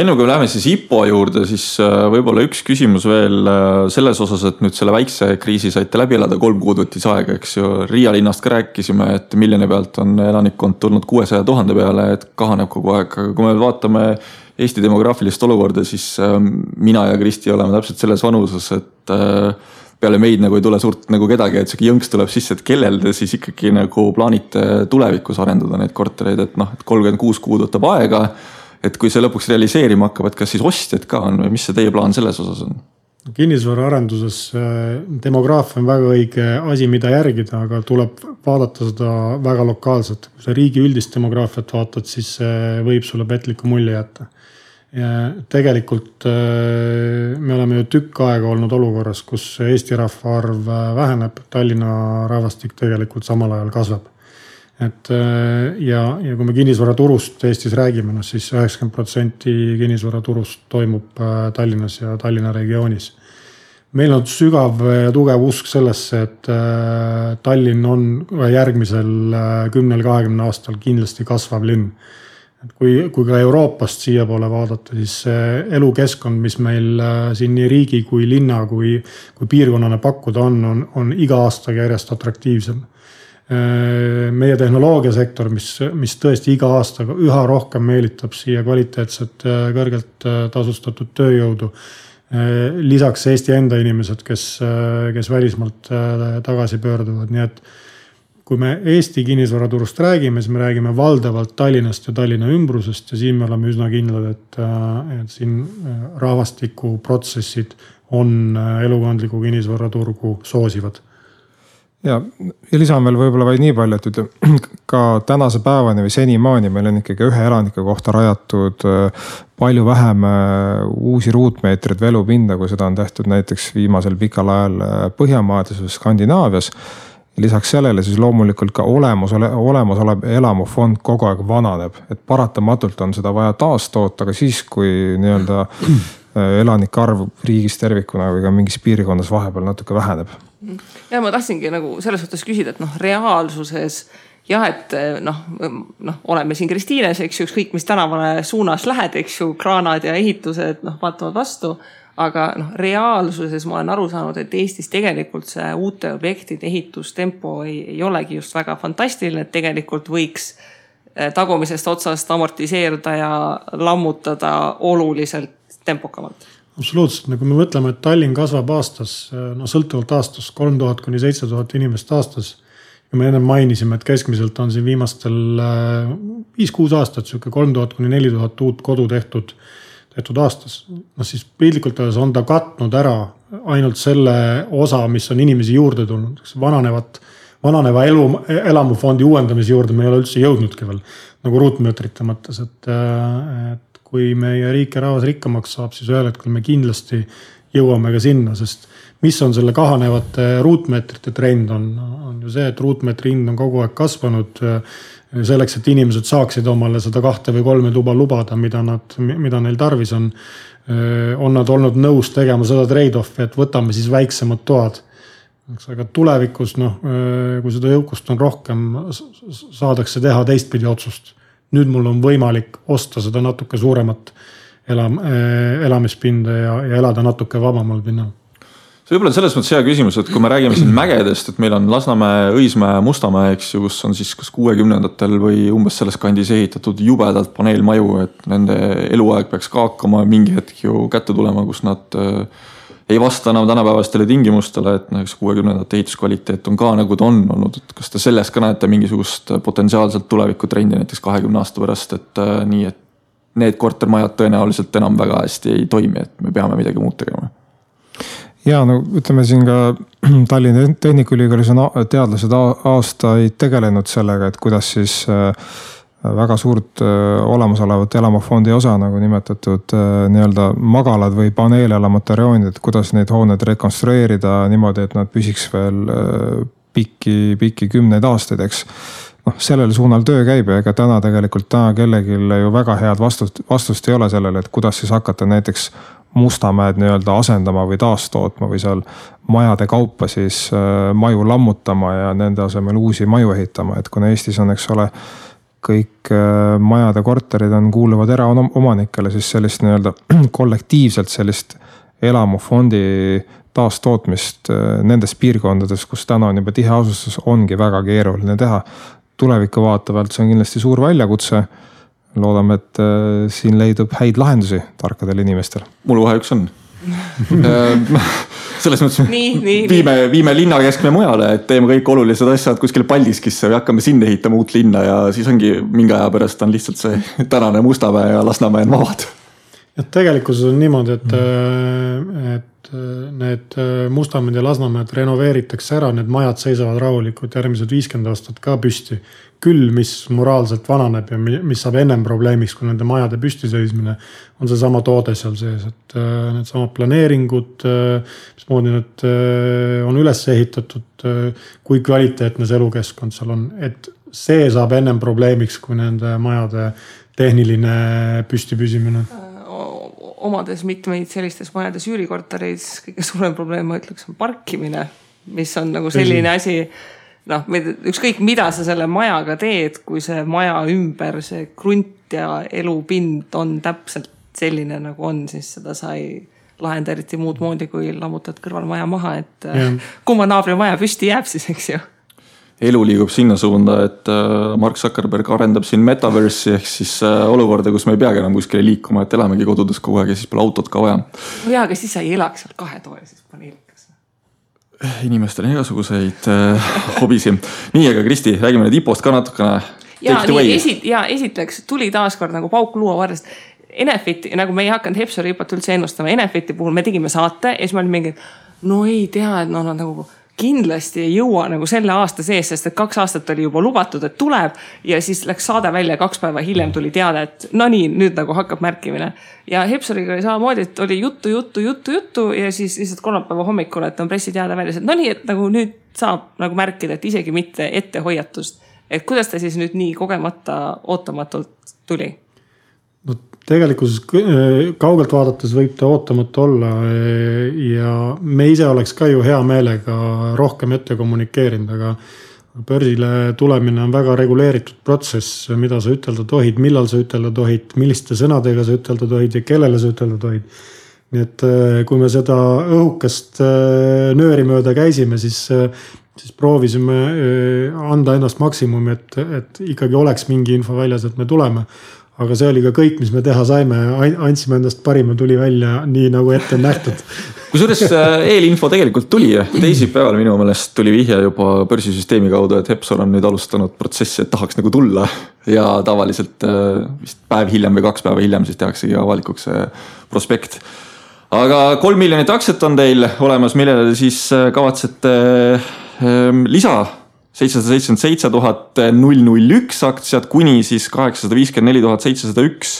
Enne kui me läheme siis IPO juurde, siis võib-olla üks küsimus veel selles osas, et nüüd selle väikse kriisi saite läbi elada, 3 kuud võttis aega, eks ju. Riia linnast ka rääkisime, et miljoni pealt on elanikkond tulnud 600 000 peale, et kahaneb kogu aeg. Aga kui me vaatame Eesti demograafilist olukorda, siis mina ja Kristi oleme täpselt selles vanuses, et peale meid nagu ei tule suurt nagu kedagi, et see jõnks tuleb sisse, et kellel te siis ikkagi nagu plaanite tulevikus arendada neid kortereid, et 36 kuud võtab aega. Et kui see lõpuks realiseerima hakkab, et kas siis ostjad ka on või mis see teie plaan selles osas on? Kinnisvara arenduses demograafia on väga õige asi, mida järgida, aga tuleb vaadata seda väga lokaalselt. Kui sa riigi üldist demograafiat vaatad, siis võib sulle petliku mulje jätta. Ja tegelikult me oleme ju tükk aega olnud olukorras, kus Eesti rahvaarv väheneb, Tallinna rahvastik tegelikult samal ajal kasvab. Et ja kui me kinnisvaraturust Eestis räägime, siis 90% kinnisvaraturust toimub Tallinnas ja Tallinna regioonis. Meil on sügav ja tugev usk sellesse, et Tallinn on järgmisel 10-20 aastal kindlasti kasvav linn. Et kui ka Euroopast siia poole vaadata, siis elukeskkond, mis meil siin nii riigi kui linna kui piirkonnane pakkuda on iga aastaga järjest atraktiivsem. Meie tehnoloogiasektor, mis tõesti iga aastaga üha rohkem meelitab siia kvaliteetset, kõrgelt tasustatud tööjõudu. Lisaks Eesti enda inimesed, kes välismaalt tagasi pöörduvad. Nii et kui me Eesti kinnisvaraturust räägime, siis me räägime valdavalt Tallinnast ja Tallinna ümbrusest ja siin me oleme üsna kindlad, et siin rahvastikuprotsessid on elukondliku kinnisvaraturgu soosivad. Ja lisan veel võib-olla vaid nii palju, et ka tänase päevani või senimaani meil on ikkagi ühe elanike kohta rajatud palju vähem uusi ruutmeetreid velupinda, kui seda on tehtud näiteks viimasel pikal ajal Põhjamaades või Skandinaavias. Lisaks sellele siis loomulikult ka olemasolev elamufond kogu aeg vananeb, et paratamatult on seda vaja taastoota, aga siis kui nii-öelda elanike arv riigis tervikuna või ka mingis piirkondas vahepeal natuke väheneb. Ja ma tahtsingi nagu selles suhtes küsida, et reaalsuses jah, et oleme siin Kristiines, eks ju, ükskõik mis tänavale suunas lähed, eks ju, kraanad ja ehitused vaatavad vastu, aga reaalsuses ma olen aru saanud, et Eestis tegelikult see uute objektide ehitustempo ei olegi just väga fantastiline, et tegelikult võiks tagumisest otsast amortiseerida ja lammutada oluliselt tempokamalt. Absoluutselt, kui me mõtleme, et Tallinn kasvab aastas, sõltuvalt aastas 3000 kuni 7000 inimest aastas. Ja me enne mainisime, et keskmiselt on siin viimastel 5-6 aastat 3000 kuni 4000 uut kodu tehtud aastas. Siis pildlikult öeldes on ta katnud ära ainult selle osa, mis on inimesi juurde tulnud. Vananeva elamufondi uuendamise juurde me ei ole üldse jõudnudki veel, nagu ruutmeetrite mõttes, et kui meie riik ja rahvas rikkamaks saab, siis ühel hetkel me kindlasti jõuame ka sinna, sest mis on selle kahanevate ruutmeetrite trend on ju see, et ruutmeetri hind on kogu aeg kasvanud selleks, et inimesed saaksid omale seda 2 või 3 tuba lubada, mida neil tarvis on nad olnud nõus tegema seda trade-offi, et võtame siis väiksemad toad. Aga tulevikus, kui seda jõukust on rohkem, saadakse teha teistpidi otsust. Nüüd mul on võimalik osta seda natuke suuremat elamispinda ja elada natuke vabamal pinnal. See võib-olla selles mõttes hea küsimus, et kui me räägime siin mägedest, et meil on Lasnamäe, Õismäe, Mustamäe, eks ju, kus on siis kas 60-ndatel või umbes selles kandis ehitatud jubedalt paneelmaju, et nende eluaeg peaks ka hakkama mingi hetk ju kätte tulema, kus nad ei vasta enam tänapäevastele tingimustele, et 60-ndate ehituskvaliteet on ka nagu ta on olnud, et kas te selles ka näete mingisugust potentsiaalselt tulevikutrendi näiteks 20 aasta pärast, et nii, et need kortermajad tõenäoliselt enam väga hästi ei toimi, et me peame midagi muud tegema. Ja ütleme siin ka Tallinna Tehnikaülikoolis on teadlased aastaid tegelenud sellega, et kuidas siis väga suurt olemasolevat elamufondi osa, nagu nimetatud nii-öelda magalad või paneelelamute rajoonid, et kuidas neid hooned rekonstrueerida niimoodi, et nad püsiks veel pikki 10 aastaid, eks. Sellel suunal töö käib ja ega täna kellelgi ju väga head vastust ei ole sellele, et kuidas siis hakata näiteks Mustamäed nii-öelda asendama või taastootma või seal majade kaupa siis maju lammutama ja nende asemel uusi maju ehitama, et kuna Eestis on, eks ole, kõik majade korterid kuuluvad eraomanikele, siis sellist nii-öelda kollektiivselt sellist elamufondi taastootmist nendes piirkondades, kus täna on juba tihe asustus, ongi väga keeruline teha. Tuleviku vaatavalt see on kindlasti suur väljakutse. Loodame, et siin leidub häid lahendusi tarkadel inimestel. Mul vahe üks on. Selles mõttes viime linna keskme mujale, et teeme kõik olulised asjad kuskil Paldiskisse või hakkame sinna ehitama uut linna ja siis ongi mingi aja pärast on lihtsalt see tänane Mustamäe ja Lasnamäe on vabad. Ja tegelikkuses on niimoodi, et need Mustamäed ja Lasnamäed renoveeritakse ära, need majad seisavad rahulikult järgmised 50 aastat ka püsti. Küll, mis moraalselt vananeb ja mis saab ennem probleemiks, kui nende majade püsti seismine, on see sama toode seal sees, et need samad planeeringud, mismoodi need on üles ehitatud, kui kvaliteetne see elukeskkond seal on, et see saab ennem probleemiks, kui nende majade tehniline püsti püsimine. Omades mitmeid sellistes majades üürikorteris kõige suurem probleem, ma ütleks, on parkimine, mis on nagu selline asi, ükskõik mida sa selle majaga teed, kui see maja ümber, see krunt ja elupind on täpselt selline nagu on, siis seda sa ei lahenda eriti muud moodi, kui lammutad kõrval maja maha, et kumma naabri maja püsti jääb siis, eks ju. Elu liigub sinna suunda, et Mark Zuckerberg arendab siin metaversi ehk siis olukorda, kus me ei peagi enam kuskile liikuma, et elamegi kodudes kogu aeg ja siis pole autot ka vaja. No jaa, aga siis sa ei elaks seal 2 toolises paneelikas. Inimestel on igasuguseid hobisi. Nii, aga Kristi, räägime nüüd IPO-st ka natukene. Esiteks tuli taaskord nagu pauk luua varrest. Enefiti, nagu me ei hakanud Hepsori IPO-t üldse ennustama, Enefiti puhul me tegime saate ja siis me olime mingi, no ei tea, et nagu kindlasti ei jõua nagu selle aasta sees, sest et 2 aastat oli juba lubatud, et tuleb ja siis läks saade välja 2 päeva hiljem tuli teada, et no nii, nüüd nagu hakkab märkimine. Ja Hepsoriga oli samamoodi, et oli juttu ja siis lihtsalt kolmapäeva hommikul, et on pressiteade väljas, et no nii, et nagu nüüd saab nagu märkida, et isegi mitte ettehoiatust. Et kuidas ta siis nüüd nii kogemata ootamatult tuli? No tegelikult kaugelt vaadates võib ta ootamatu olla ja me ise oleks ka ju hea meelega rohkem ette kommunikeerinud, aga börsile tulemine on väga reguleeritud protsess, mida sa ütelda tohid, millal sa ütelda tohid, milliste sõnadega sa ütelda tohid ja kellele sa ütelda tohid. Nii et kui me seda õhukest nööri mööda käisime, siis proovisime anda ennast maksimumi, et ikkagi oleks mingi info väljas, et me tuleme. Aga see oli ka kõik, mis me teha saime, andsime endast parima, tuli välja nii nagu ette on nähtud. Kusjuures eelinfo tegelikult tuli teisipäeval minu meelest tuli vihje juba börsisüsteemi kaudu, et Hepsor on nüüd alustanud protsessi, et tahaks nagu tulla ja tavaliselt vist päev hiljem või 2 päeva hiljem siis tehaksegi avalikuks prospekt. Aga 3 miljonit aktsiat on teil olemas, millele siis kavatsete lisa 777 001 aktsiat kuni siis 854 701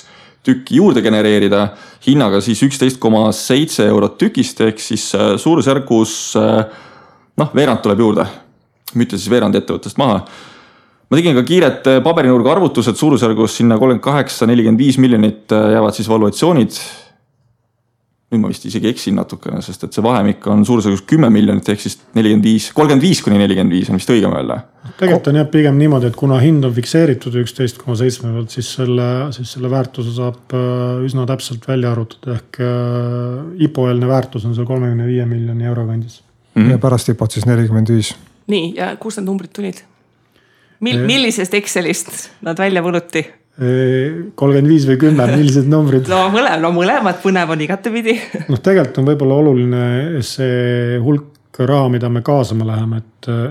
tükki juurde genereerida hinnaga siis 11,7 eurot tükist ehk siis suurusjärgus veerand tuleb juurde. Müüte siis veerand ettevõttest maha. Ma tegin ka kiiret paberinurga arvutused suurusjärgus sinna 38-45 miljonit jäävad siis valuatsioonid. Nüüd ma vist isegi eksin natukene, sest et see vahemik on suurusjärgus 10 miljonit ehk siis 35 kuni 45 on vist õigem öelda. Tegelikult on jah pigem niimoodi, et kuna hind on fikseeritud 11,7 pealt, siis selle väärtuse saab üsna täpselt välja arvutada ehk IPO-eelne väärtus on see 35 miljoni euro kandis. Ja pärast IPO-t siis 45. Nii, ja kus need numbrid tulid? Millisest Excelist nad välja võluti? 35 või 10, millised numbrid? No mõlemad põnev on igatepidi. Tegelikult on võib-olla oluline see hulk raha, mida me kaasama läheme,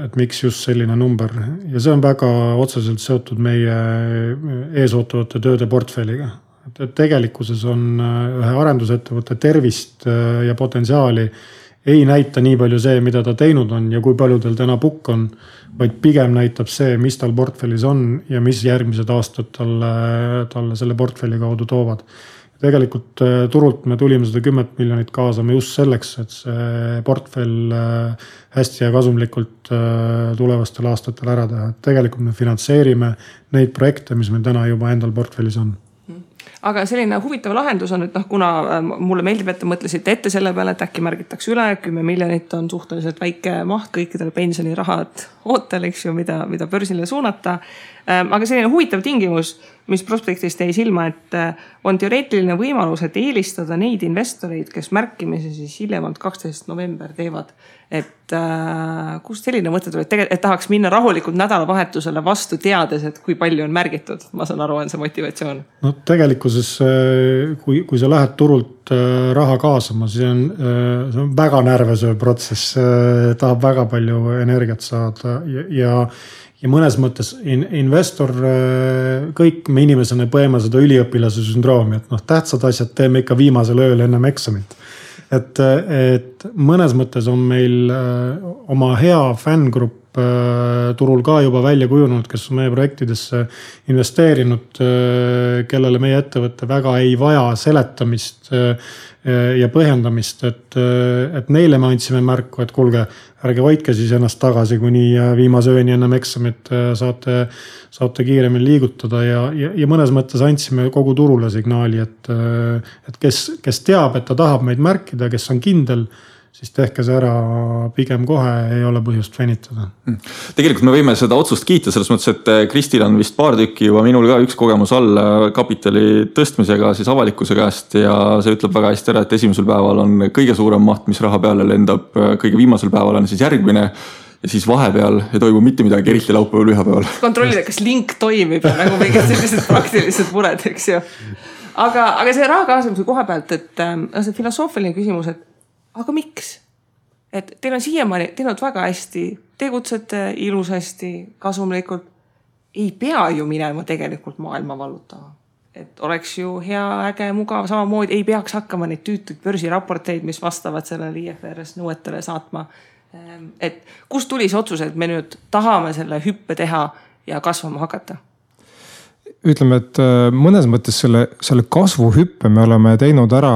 et miks just selline number. Ja see on väga otseselt seotud meie eesootavate tööde portfelliga. Et tegelikkuses on ühe arendusettevõtte tervist ja potentsiaali ei näita nii palju see, mida ta teinud on ja kui palju tal täna pukk on, vaid pigem näitab see, mis tal portfellis on ja mis järgmised aastad talle selle portfelli kaudu toovad. Tegelikult turult me tulime seda 10 miljonit kaasama just selleks, et see portfell hästi ja kasumlikult tulevastel aastatel ära teha. Tegelikult me finantseerime neid projekte, mis meil täna juba endal portfellis on. aga selline huvitav lahendus on, et kuna mulle meeldib, et te mõtlesite ette selle peale, et äkki märgitakse üle, 10 miljonit on suhteliselt väike maht kõikidele pensionirahad ootel, eks ju, mida börsile suunata. Aga selline huvitav tingimus, mis prospektist jäi silma, et on teoreetiline võimalus, et eelistada neid investoreid, kes märkimise siis hiljemalt 12. november teevad. Et kust selline mõte tuli, et tahaks minna rahulikult nädalavahetusele vastu teades, et kui palju on märgitud. Ma saan aru, on see motivatsioon. No tegelikkuses, kui sa lähed turult raha kaasama, see on väga närvesööv protsess, tahab väga palju energiat saada ja mõnes mõttes investor, kõik me inimesena põeme seda üliõpilase sündroomi, et tähtsad asjad teeme ikka viimasel ööl ennem eksamit. Et mõnes mõttes on meil oma hea fängrupp turul ka juba välja kujunud, kes on meie projektidesse investeerinud, kellele meie ettevõtte väga ei vaja seletamist ja põhjendamist, et neile me andsime märku, et kuulge, ärge hoidke siis ennast tagasi, kuni viimase ööni ennem eksamit saate kiiremini liigutada ja mõnes mõttes andsime kogu turule signaali, et kes teab, et ta tahab meid märkida, kes on kindel, siis tehke see ära pigem kohe, ei ole põhjust venitada. Tegelikult me võime seda otsust kiita selles mõttes, et Kristil on vist paar tükki juba minul ka üks kogemus all kapitali tõstmisega siis avalikkuse käest ja see ütleb väga hästi ära, et esimesel päeval on kõige suurem maht, mis raha peale lendab, kõige viimasel päeval on siis järgmine ja siis vahepeal ei toimu mitte midagi, eriti laupäeval, pühapäeval. Kontrollida, kas link toimib ja nagu mingid sellised praktilised mured, eks ju. Aga see raha kaasamise koha pealt, et see filosoofiline küsimus, et aga miks? Et teil on siiamaani teinud väga hästi, tegutsete ilusasti, kasumlikult. Ei pea ju minema tegelikult maailma vallutama. Et oleks ju hea, äge, mugav, samamoodi ei peaks hakkama neid tüütuid börsiraporteid, mis vastavad sellele IFRS nõuetele saatma. Et kust tuli see otsus, et me nüüd tahame selle hüppe teha ja kasvama hakata? Ütleme, et mõnes mõttes selle kasvuhüppe me oleme teinud ära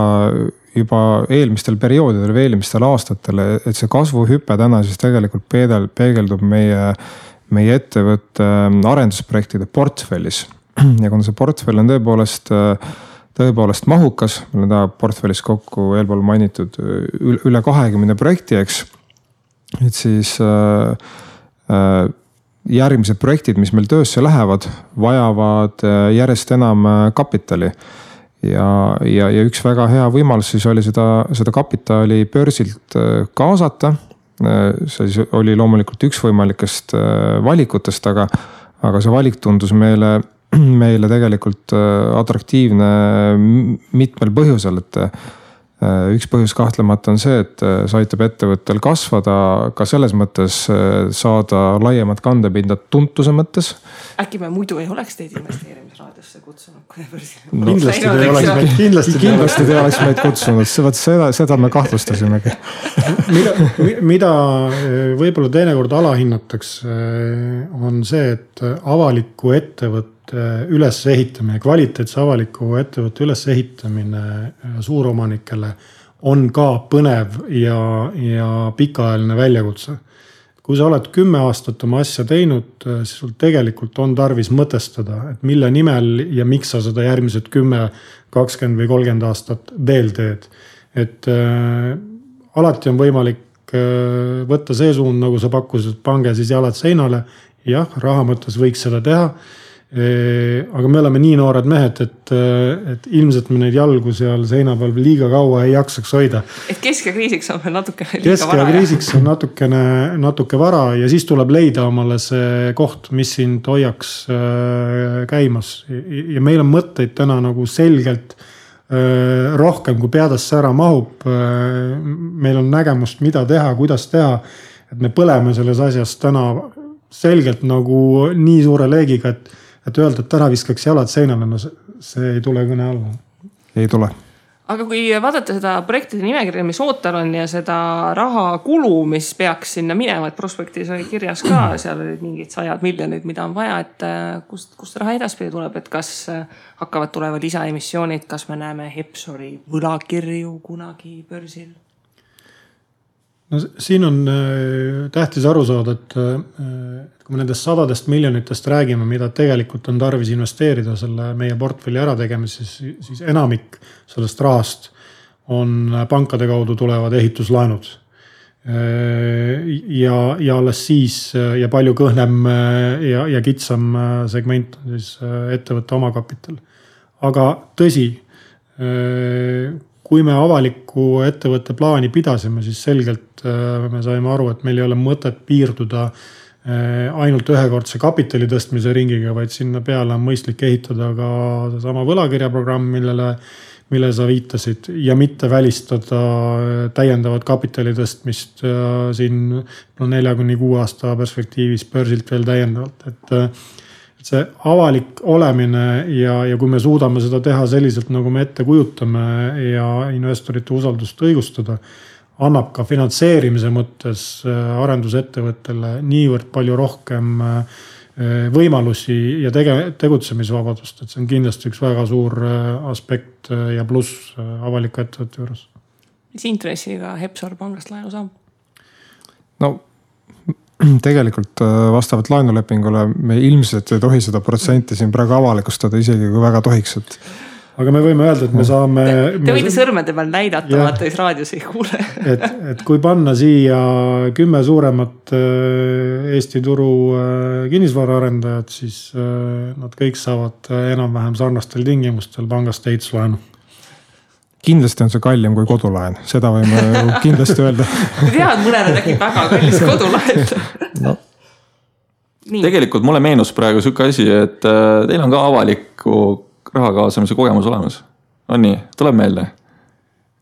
juba eelmistel perioodidel või eelmistel aastatel, et see kasvuhüpe täna siis tegelikult peegeldub meie ettevõtte arendusprojektide portfellis. Ja kuna see portfell on tõepoolest mahukas, meil on ta portfellis kokku eelpool mainitud üle 20 projekti, eks, et siis järgmised projektid, mis meil töösse lähevad, vajavad järjest enam kapitali. Ja üks väga hea võimalus siis oli seda kapitali börsilt kaasata. See oli loomulikult üks võimalikest valikutest, aga see valik tundus meile tegelikult atraktiivne mitmel põhjusel, et üks põhjus kahtlemata on see, et see aitab ettevõttel kasvada ka selles mõttes saada laiemat kandepinda tuntuse mõttes. Äkki me muidu ei oleks teid investeerimisraadiosse kutsunud? Kindlasti te oleks meid kutsunud, seda me kahtlustasimegi. Mida võib-olla teinekord alahinnatakse on see, et avaliku ettevõtte ülesehitamine, kvaliteetse avaliku ettevõtte ülesehitamine suuromanikele on ka põnev ja pikaajaline väljakutse. Kui sa oled 10 aastat oma asja teinud, siis sul tegelikult on tarvis mõtestada, et mille nimel ja miks sa seda järgmised 10, 20 või 30 aastat veel teed. Et alati on võimalik võtta see suund, nagu sa pakkusid, pange siis jalad seinale. Jah, raha mõttes võiks seda teha. Aga me oleme nii noored mehed, et ilmselt me neid jalgu seal seina peal liiga kaua ei jaksaks hoida. Et keskkriisiks on veel natukene liiga vara. Keskkriisiks on natuke vara ja siis tuleb leida omale see koht, mis sind hoiaks käimas. Ja meil on mõtteid täna nagu selgelt rohkem, kui peadasse ära mahub. Meil on nägemust, mida teha, kuidas teha. Et me põleme selles asjas täna selgelt nagu nii suure leegiga, et öelda, et täna viskaks jalad seinale, no see ei tule kõne alla. Ei tule. Aga kui vaadata seda projektide nimekirja, mis ootel on ja seda raha kulu, mis peaks sinna minema, et prospektis oli kirjas ka, seal olid mingid 100 miljonid, mida on vaja, et kust raha edaspidi tuleb, et kas hakkavad tuleva lisaemissioonid, kas me näeme Hepsori võlakirju kunagi börsil? no siin on tähtis aru saada, et kui me nendest 100 miljonitest räägime, mida tegelikult on tarvis investeerida selle meie portfelli ärategemises, siis enamik sellest rahast on pankade kaudu tulevad ehituslaenud. Ja alles siis ja palju kõhnem ja kitsam segment on siis ettevõtte omakapital. Aga tõsi, kui me avaliku ettevõtte plaani pidasime, siis selgelt me saime aru, et meil ei ole mõtet piirduda ainult ühekordse kapitali tõstmise ringiga, vaid sinna peale on mõistlik ehitada ka sama võlakirjaprogramm, mille sa viitasid ja mitte välistada täiendavat kapitali tõstmist siin 4-6 aasta perspektiivis börsilt veel täiendavalt. Et see avalik olemine ja kui me suudame seda teha selliselt, nagu me ette kujutame ja investorite usaldust õigustada, annab ka finantseerimise mõttes arendusettevõttele niivõrd palju rohkem võimalusi ja tegutsemisvabadust, et see on kindlasti üks väga suur aspekt ja pluss avaliku ettevõtte juures. Mis intressiga Hepsor pangast laenu saab? No tegelikult vastavalt laenulepingule me ilmselt ei tohi seda protsenti siin praegu avalikustada, isegi kui väga tohiks, et aga me võime öelda, et me saame... Te võite sõrmede peal näidata, vaata, siis raadios ei kuule. et kui panna siia 10 suuremat Eesti turu kinnisvaraarendajad, siis nad kõik saavad enam-vähem sarnastel tingimustel pangast ehituslaenu. Kindlasti on see kallim kui kodulaen, seda võime kindlasti öelda. Tead, mõnele tekib väga kallis kodulaen. No. Tegelikult mulle meenus praegu siuke asi, et teil on ka avaliku raha kaasamise kogemus olemas. On nii, tuleb meelde.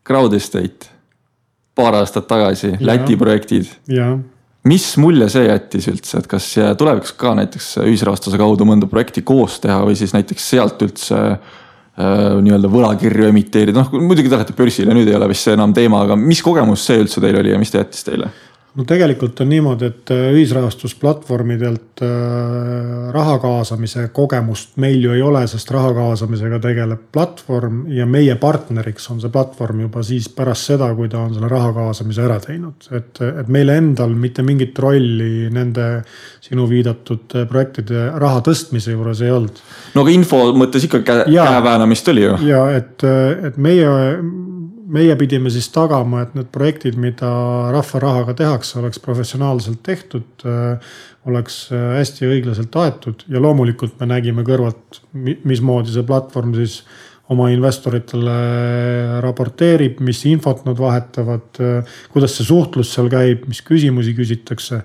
Crowd Estate, paar aastat tagasi, Läti projektid. Ja. Mis mulje see jättis üldse, et kas tuleviks ka näiteks ühisrahastuse kaudu mõnda projekti koos teha või siis näiteks sealt üldse nii-öelda võlakirju emiteerida? No muidugi te lähete börsile, nüüd ei ole vist see enam teema, aga mis kogemus see üldse teil oli ja mis te jättis teile? No tegelikult on niimoodi, et ühisrahastusplatvormidelt raha kaasamise kogemust meil ju ei ole, sest raha kaasamisega tegeleb platvorm ja meie partneriks on see platvorm juba siis pärast seda, kui ta on selle raha kaasamise ära teinud. Et meile endal mitte mingit rolli nende sinu viidatud projektide raha tõstmise juures ei olnud. No aga info mõttes ikka käeväänamist oli ju. Ja et meie pidime siis tagama, et need projektid, mida rahva rahaga tehakse, oleks professionaalselt tehtud, oleks hästi õiglaselt aetud ja loomulikult me nägime kõrvalt, mismoodi see platvorm siis oma investoritele raporteerib, mis infot nad vahetavad, kuidas see suhtlus seal käib, mis küsimusi küsitakse.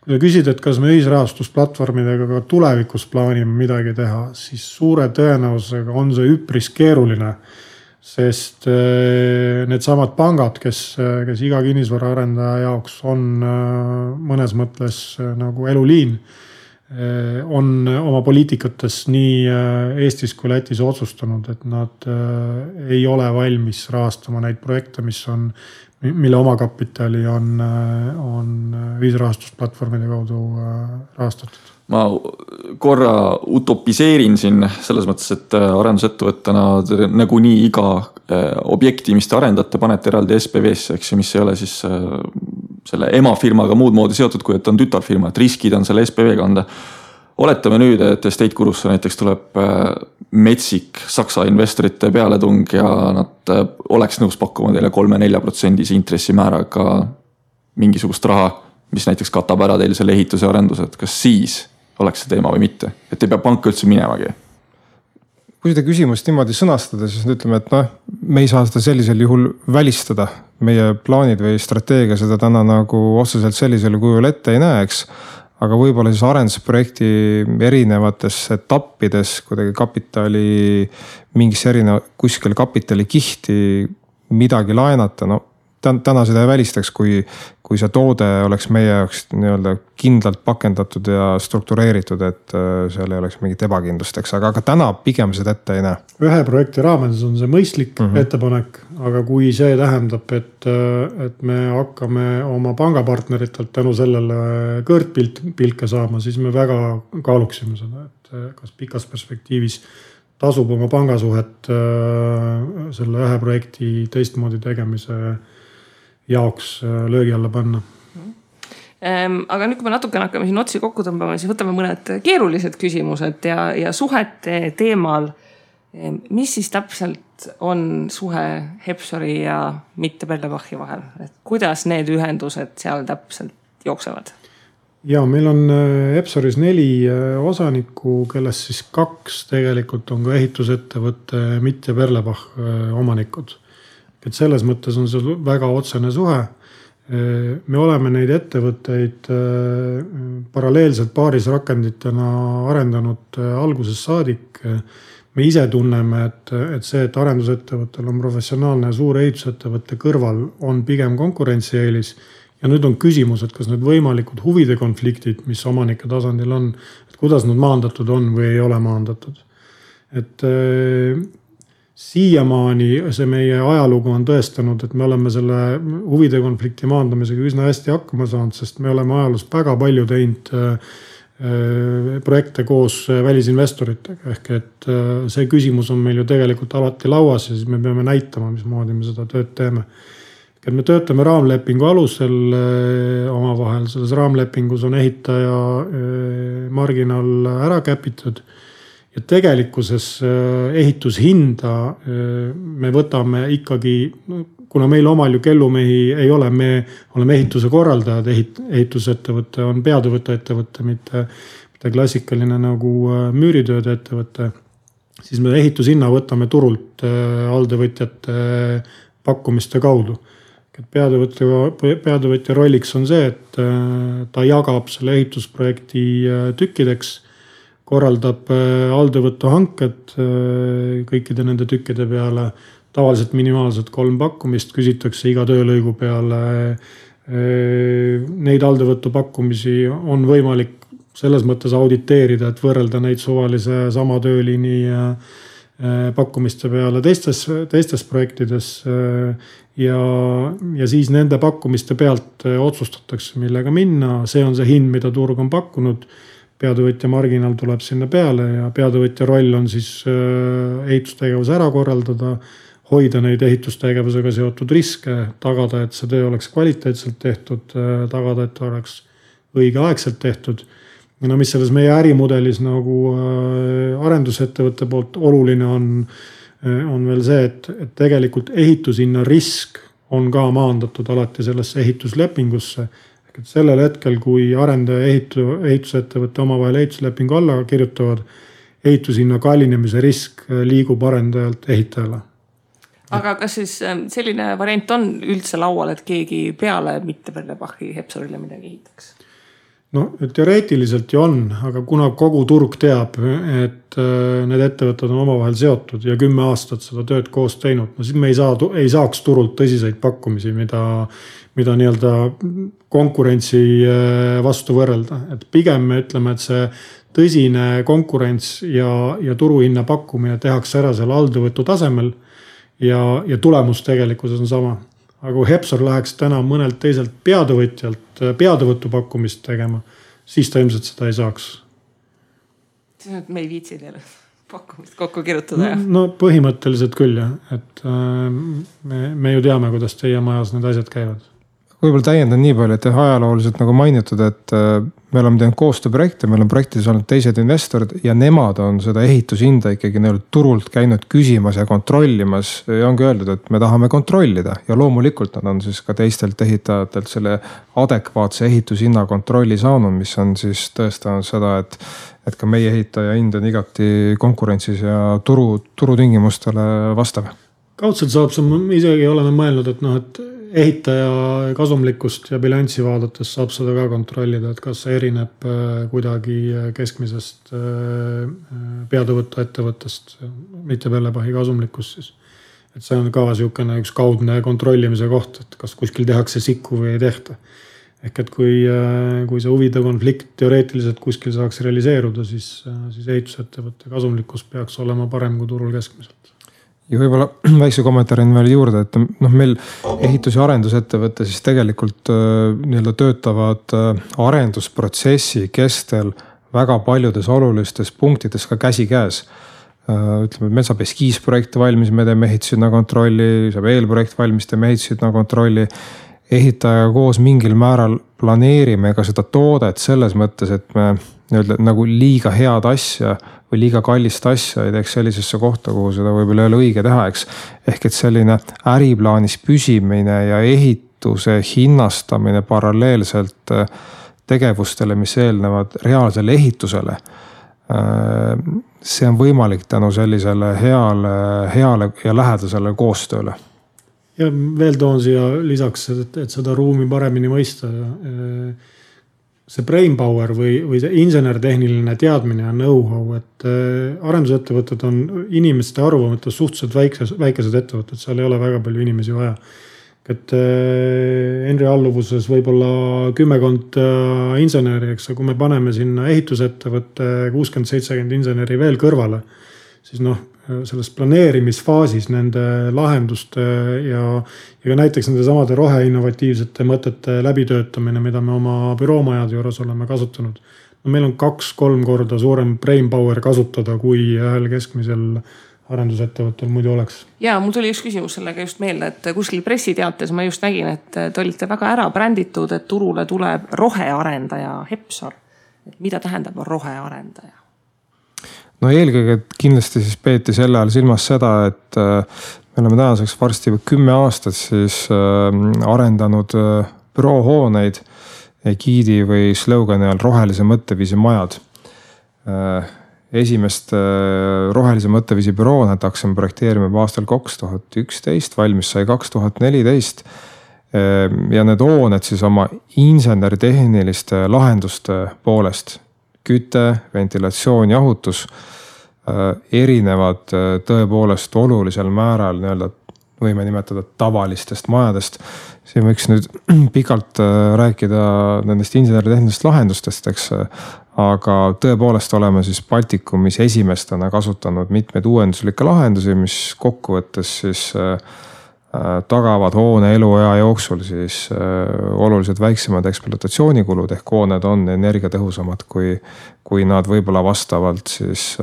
Kui sa küsid, et kas me ühisrahastusplatvormidega ka tulevikus plaanime midagi teha, siis suure tõenäosusega on see üpris keeruline. Sest need samad pangad, kes iga kinnisvaraarendaja jaoks on mõnes mõttes nagu eluliin, on oma poliitikates nii Eestis kui Lätis otsustanud, et nad ei ole valmis rahastama neid projekte, mille omakapitali on ühisrahastusplatvormide kaudu rahastatud. Ma korra utopiseerin siin selles mõttes, et arendusettevõttena nagu nii iga objekti, mis te arendate, panete eraldi SPV-sse, eks, mis ei ole siis selle emafirmaga muud moodi seotud, kui et on tütarfirma, et riskid on selle SPV kanda. Oletame nüüd, et Estate Gurusse näiteks tuleb metsik Saksa investorite pealetung ja nad oleks nõus pakkuma teile 3-4% intressimääraga mingisugust raha, mis näiteks katab ära teil selle ehituse arendused. Kas siis oleks see teema või mitte? Et ei pea panka üldse minemagi. Kui seda küsimust niimoodi sõnastada, siis ütleme, et me ei saa seda sellisel juhul välistada. Meie plaanid või strateegia seda täna nagu otseselt sellisel kujul ette ei näeks. Aga võib-olla siis arendusprojekti erinevates etappides kuidagi kapitali, mingis kuskil kapitali kihti midagi laenata. No, täna seda ei välistaks, kui see toode oleks meie jaoks nii-öelda kindlalt pakendatud ja struktureeritud, et seal ei oleks mingit ebakindlusteks, aga täna pigem seda ette ei näe. Ühe projekti raames on see mõistlik ettepanek, aga kui see tähendab, et me hakkame oma pangapartneritelt tänu sellele kõrtpilke saama, siis me väga kaaluksime seda, et kas pikas perspektiivis tasub oma pangasuhet selle ühe projekti teistmoodi tegemise jaoks löögi alla panna. Aga nüüd, kui me natukene hakkame siin otsi kokku tõmbama, siis võtame mõned keerulised küsimused ja suhete teemal. Mis siis täpselt on suhe Hepsori ja mitte Perlebachi vahel? Et kuidas need ühendused seal täpselt jooksevad? Ja meil on Hepsoris 4 osanikku, kellest siis 2 tegelikult on ka ehitusettevõtte mitte Perlebach omanikud. Et selles mõttes on see väga otsene suhe. Me oleme neid ettevõtteid paralleelselt paaris rakenditena arendanud algusest saadik. Me ise tunneme, et see, et arendusettevõttel on professionaalne ja suur ehitusettevõtte kõrval on pigem konkurentsieelis. Ja nüüd on küsimus, et kas need võimalikud huvide konfliktid, mis omanike tasandil on, et kuidas nad maandatud on või ei ole maandatud. Et siiamaani see meie ajalugu on tõestanud, et me oleme selle huvide konflikti maandamisega üsna hästi hakkama saanud, sest me oleme ajaloos väga palju teinud projekte koos välisinvestoritega. Ehk et see küsimus on meil ju tegelikult alati lauas ja siis me peame näitama, mismoodi me seda tööd teeme. Et me töötame raamlepingu alusel omavahel. Selles raamlepingus on ehitaja marginaal ära käpitud. Ja tegelikkuses ehitushinda me võtame ikkagi, kuna meil omal ju kellumehi ei ole, me oleme ehituse korraldajad, ehitusettevõte on peatöövõtte ettevõte, mitte klassikaline nagu müüritööde ettevõte, siis me ehitushinna võtame turult alltöövõtjate pakkumiste kaudu. Peatöövõtja rolliks on see, et ta jagab selle ehitusprojekti tükkideks, korraldab alltöövõtu hanked kõikide nende tükkide peale, tavaliselt minimaalselt 3 pakkumist, küsitakse iga töölõigu peale. Neid alltöövõtu pakkumisi on võimalik selles mõttes auditeerida, et võrrelda neid suvalise sama tööliini pakkumiste peale teistes projektides ja siis nende pakkumiste pealt otsustatakse, millega minna. See on see hind, mida turg on pakkunud. Peatöövõtja marginaal tuleb sinna peale ja peatöövõtja roll on siis ehitustegevus ära korraldada, hoida neid ehitustegevusega seotud riske, tagada, et see töö oleks kvaliteetselt tehtud, tagada, et oleks õigeaegselt tehtud. Ja mis selles meie ärimudelis nagu arendusettevõtte poolt oluline on veel see, et tegelikult ehitushinna risk on ka maandatud alati sellesse ehituslepingusse. Et sellel hetkel, kui arendaja ehitusettevõtte omavahel ehituslepingu alla kirjutavad, ehitushinna kallinemise risk liigub arendajalt ehitajale. Aga kas siis selline variant on üldse laual, et keegi peale mitte Perlebachi Hepsorile midagi ehitaks? No teoreetiliselt ju on, aga kuna kogu turg teab, et need ettevõtted on omavahel seotud ja 10 aastat seda tööd koos teinud, no siis me ei saaks turult tõsiseid pakkumisi, mida nii-öelda konkurentsi vastu võrrelda. Et pigem me ütleme, et see tõsine konkurents ja turuhinna pakkumine tehakse ära selle alltöövõtu tasemel ja tulemus tegelikkuses on sama. Aga kui Hepsor läheks täna mõnelt teiselt peatöövõtjalt peatöövõtu pakkumist tegema, siis ta ilmselt seda ei saaks. Siis on, et me ei viitsi teile pakkumist kokku kirjutada. No põhimõtteliselt küll jah, et me ju teame, kuidas teie majas need asjad käivad. Võib-olla täiendan nii palju, et ajalooliselt nagu mainitud, et me oleme teinud koostööprojekte, meil on projektides olnud teised investorid ja nemad on seda ehitushinda ikkagi turult käinud küsimas ja kontrollimas ja ongi öeldud, et me tahame kontrollida ja loomulikult nad on siis ka teistelt ehitajatelt selle adekvaatse ehitushinna kontrolli saanud, mis on siis tõestanud seda, et ka meie ehitaja hind on igati konkurentsis ja turutingimustele vastav. Kaudselt saab see, isegi oleme mõelnud, et ehitaja kasumlikkust ja bilanssi vaadates saab seda ka kontrollida, et kas see erineb kuidagi keskmisest peatöövõtu ettevõttest, mitte Perlebachi kasumlikkust siis. Et see on ka niisugune üks kaudne kontrollimise koht, et kas kuskil tehakse sikku või ei tehta. Ehk et kui see huvide konflikt teoreetiliselt kuskil saaks realiseeruda, siis ehitusettevõtte kasumlikkus peaks olema parem kui turul keskmiselt. Ja võib-olla väikse kommentaarin veel juurde, et meil ehitus- ja arendusettevõte siis tegelikult töötavad arendusprotsessi kestel väga paljudes olulistes punktides ka käsikäes. Ütleme, et meil saab eskiisprojekt valmis, me teeme ehitushinna kontrolli, saab eelprojekt valmis, teeme ehitushinna kontrolli. ehitajaga koos mingil määral planeerime ka seda toodet selles mõttes, et me nii-öelda nagu liiga head asja või liiga kallist asja ei teeks sellisesse kohta, kuhu seda võib-olla ei ole õige teha, eks. Ehk et selline äriplaanis püsimine ja ehituse hinnastamine paralleelselt tegevustele, mis eelnevad reaalsele ehitusele. See on võimalik tänu sellisele heale ja lähedasele koostööle. Ja veel toon siia lisaks, et seda ruumi paremini mõista. See brain power või see insenertehniline teadmine ja know-how, et arendusettevõtted on inimeste arvu mõttes suhteliselt väikesed ettevõtted, seal ei ole väga palju inimesi vaja. Et Henri alluvuses võib-olla 10 inseneri, eks, kui me paneme sinna ehitusettevõtte 60-70 inseneri veel kõrvale, siis selles planeerimisfaasis nende lahenduste ja ka näiteks nende samade roheinnovatiivsete mõtete läbitöötamine, mida me oma büroomajade juures oleme kasutanud. Meil on 2-3 korda suurem brain power kasutada, kui ühel keskmisel arendusettevõttel muidu oleks. Ja mul tuli üks küsimus sellega just meelde, et kuskil pressiteates ma just nägin, et te olite väga ära bränditud, et turule tuleb rohearendaja Hepsar. Et mida tähendab rohearendaja? No eelkõige kindlasti siis peeti selle ajal silmas seda, et me oleme tänaseks varsti 10 aastat siis arendanud büroohooneid giidi või slogani all rohelise mõtteviisi majad. Esimest rohelise mõtteviisi bürooned hakkasime projekteerima aastal 2011, valmis sai 2014. Ja need hooned siis oma inseneritehniliste lahenduste poolest, küte, ventilatsioon, jahutus, erinevad tõepoolest olulisel määral nii-öelda võime nimetada tavalistest majadest. Siin võiks nüüd pikalt rääkida nendest inseneritehnilistest lahendustest, eks, aga tõepoolest oleme siis Baltikumis esimestena kasutanud mitmeid uuenduslikke lahendusi, mis kokkuvõttes siis tagavad hoone eluea jooksul siis oluliselt väiksemad ekspluatatsioonikulud ehk hooned on energiatõhusamad, kui nad võib-olla vastavalt siis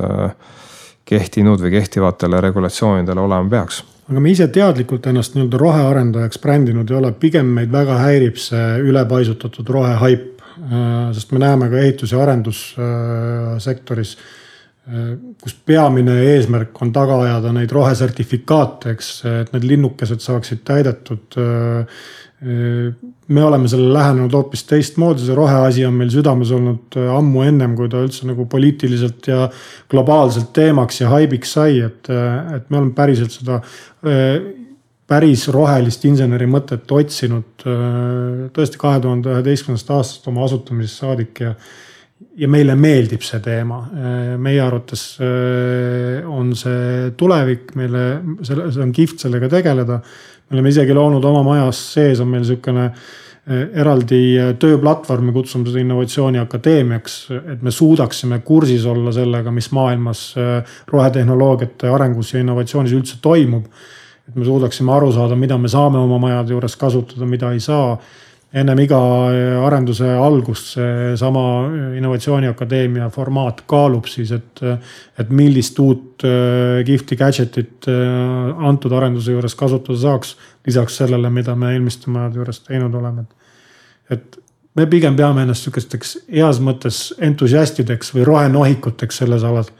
kehtinud või kehtivatele regulatsioonidele olema peaks. Aga me ise teadlikult ennast nii-öelda rohearendajaks brändinud ei ole, pigem meid väga häirib see ülepaisutatud rohehaip, sest me näeme ka ehitus- ja arendussektoris, kus peamine eesmärk on taga ajada neid rohesertifikaate, eks, et need linnukesed saaksid täidetud. Me oleme selle lähenenud hoopis teistmoodi, see roheasi on meil südames olnud ammu ennem, kui ta üldse nagu poliitiliselt ja globaalselt teemaks ja haibiks sai, et me oleme päriselt seda päris rohelist inseneri mõtet otsinud tõesti 2011. aastast oma asutamisest saadik ja meile meeldib see teema. Meie arvates on see tulevik, see on kihvt sellega tegeleda. Me oleme isegi loonud oma majas sees, on meil selline eraldi tööplatvormi, kutsume seda innovatsiooni akadeemiaks, et me suudaksime kursis olla sellega, mis maailmas rohetehnoloogiate arengus ja innovatsioonis üldse toimub. Et me suudaksime aru saada, mida me saame oma majade juures kasutada, mida ei saa. Ennem iga arenduse algust see sama innovatsiooniakadeemia formaat kaalub siis, et millist uut kihvti gadgetit antud arenduse juures kasutada saaks, lisaks sellele, mida me eelmiste majade juures teinud oleme. Et me pigem peame ennast sükesteks heas mõttes entusiastideks või rohenohikuteks selles alas.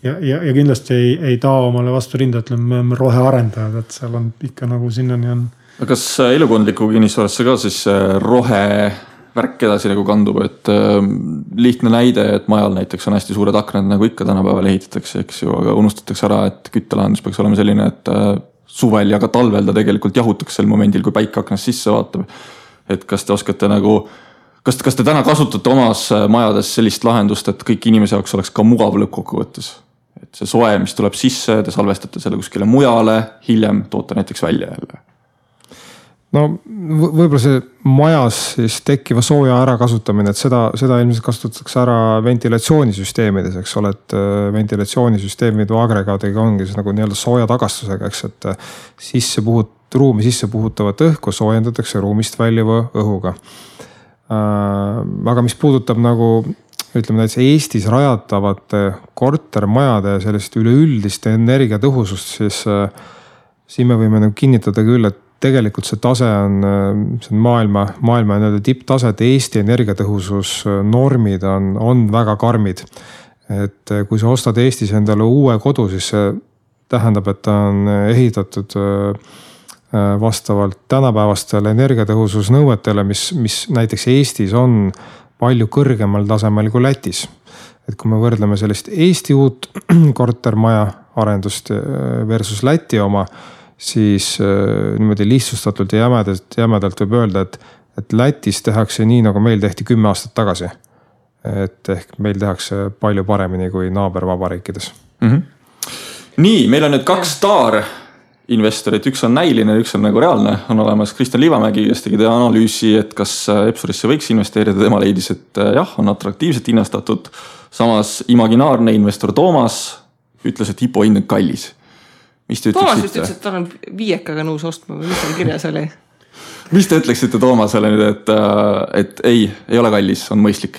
Ja kindlasti ei taa omale vastu rinda, et me oleme rohearendajad, et seal on ikka nagu sinnani on. Kas elukondliku kinnisvarasse ka siis rohevärk edasi nagu kandub, et lihtne näide, et majal näiteks on hästi suured aknad, nagu ikka tänapäeval ehitatakse, eks ju, aga unustatakse ära, et küttelahendus peaks olema selline, et suvel ja ka talvel ta tegelikult jahutakse sel momendil, kui päike aknast sisse vaatab. Et kas te oskate nagu, kas te täna kasutate omas majades sellist lahendust, et kõik inimese jaoks oleks ka mugav lõppkokkuvõttes? Et see soe, mis tuleb sisse, te salvestate selle kuskile mujale, hiljem toote näiteks välja jälle. No võib-olla see majas siis tekkiva sooja ärakasutamine, et seda ilmselt kasutatakse ära ventilatsioonisüsteemides, eks ole, et ventilatsioonisüsteemid või agregaadiga ongi siis nagu nii-öelda sooja tagastusega, eks, et ruumi sisse puhutavat õhku soojendatakse ruumist väljuva õhuga. Aga mis puudutab nagu, ütleme näiteks Eestis rajatavate kortermajade sellist üleüldist energiatõhusust, siis me võime nagu kinnitada küll, et tegelikult see tase on maailma nii-öelda tipptase, et Eesti energiatõhususnormid on väga karmid. Et kui sa ostad Eestis endale uue kodu, siis see tähendab, et ta on ehitatud vastavalt tänapäevastele energiatõhususnõuetele, mis näiteks Eestis on palju kõrgemal tasemel kui Lätis. Et kui me võrdleme sellist Eesti uut kortermaja arendust versus Läti oma, siis niimoodi lihtsustatult ja jämedalt võib öelda, et Lätis tehakse nii, nagu meil tehti 10 aastat tagasi. Et ehk meil tehakse palju paremini kui naabervabariikides. Nii, meil on nüüd 2 staarinvestorit, üks on näiline, üks on nagu reaalne. On olemas Kristjan Liivamägi, kes tegi analüüsi, et kas Epsurisse võiks investeerida. Tema leidis, et jah, on atraktiivselt hinnastatud. Samas imaginaarne investor Toomas ütles, et IPO hind on kallis. Mis te Toomas ütleksite? ütles, et ta on 5 nõus ostma, või mis on kirjas oli? Mis te ütleksite Toomasele nüüd, et ei ole kallis, on mõistlik?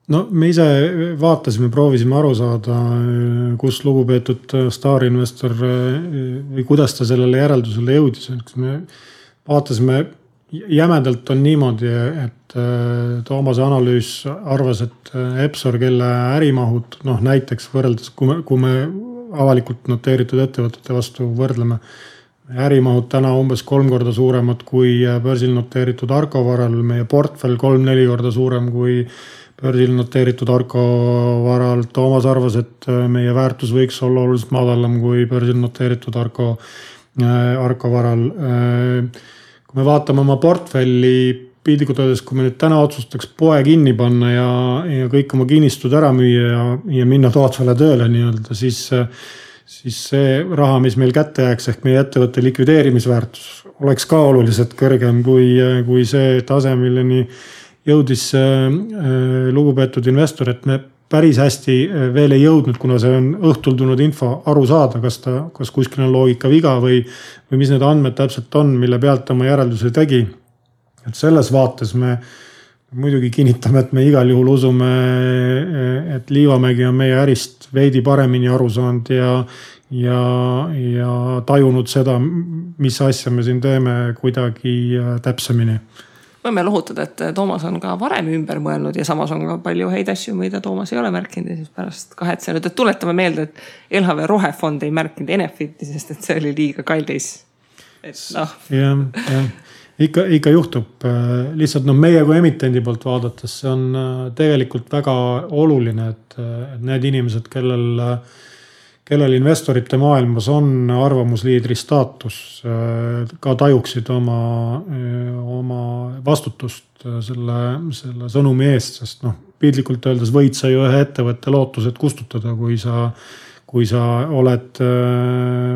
No me ise vaatasime, proovisime aru saada, kus lugupeetud staarinvestor või kuidas ta sellele järeldusele jõudis. Me vaatasime, jämedalt on niimoodi, et Toomase analüüs arvas, et Epsor, kelle ärimahud, näiteks võrreldes, kui me avalikult noteeritud ettevõtete vastu võrdleme, ärimahud täna umbes 3 korda suuremad kui börsil noteeritud Arko varal, meie portfell 3-4 korda suurem kui börsil noteeritud Arko varal. Toomas arvas, et meie väärtus võiks olla oluliselt madalam kui börsil noteeritud Arko varal. Kui me vaatame oma portfelli pildikult öeldes, kui me nüüd täna otsustaks poe kinni panna ja kõik oma kinnistud ära müüa ja minna tootvale tööle nii-öelda, siis see raha, mis meil kätte jääks ehk meie ettevõtte likvideerimisväärtus oleks ka oluliselt kõrgem kui see tase, milleni jõudis lugupeetud investor, et me päris hästi veel ei jõudnud, kuna see on õhtul tulnud info aru saada, kas kuskil on loogika viga või mis need andmed täpselt on, mille pealt oma järelduse tegi. Et selles vaates me muidugi kinnitame, et me igal juhul usume, et Liivamägi on meie ärist veidi paremini aru saanud ja tajunud seda, mis asja me siin teeme kuidagi täpsemini. Võime lohutada, et Toomas on ka varem ümber mõelnud ja samas on ka palju häid asju, mida Toomas ei ole märkinud ja siis pärast kahetsenud. Et tuletame meelde, et LHV Rohefond ei märkinud Enefiti, sest et see oli liiga kallis. Ikka juhtub. Lihtsalt meie kui emitendi poolt vaadates, see on tegelikult väga oluline, et need inimesed, kellel investorite maailmas on arvamusliidri staatus, ka tajuksid oma vastutust selle sõnumi eest, sest piltlikult öeldes võid sa ju ühe ettevõtte lootused kustutada, kui sa oled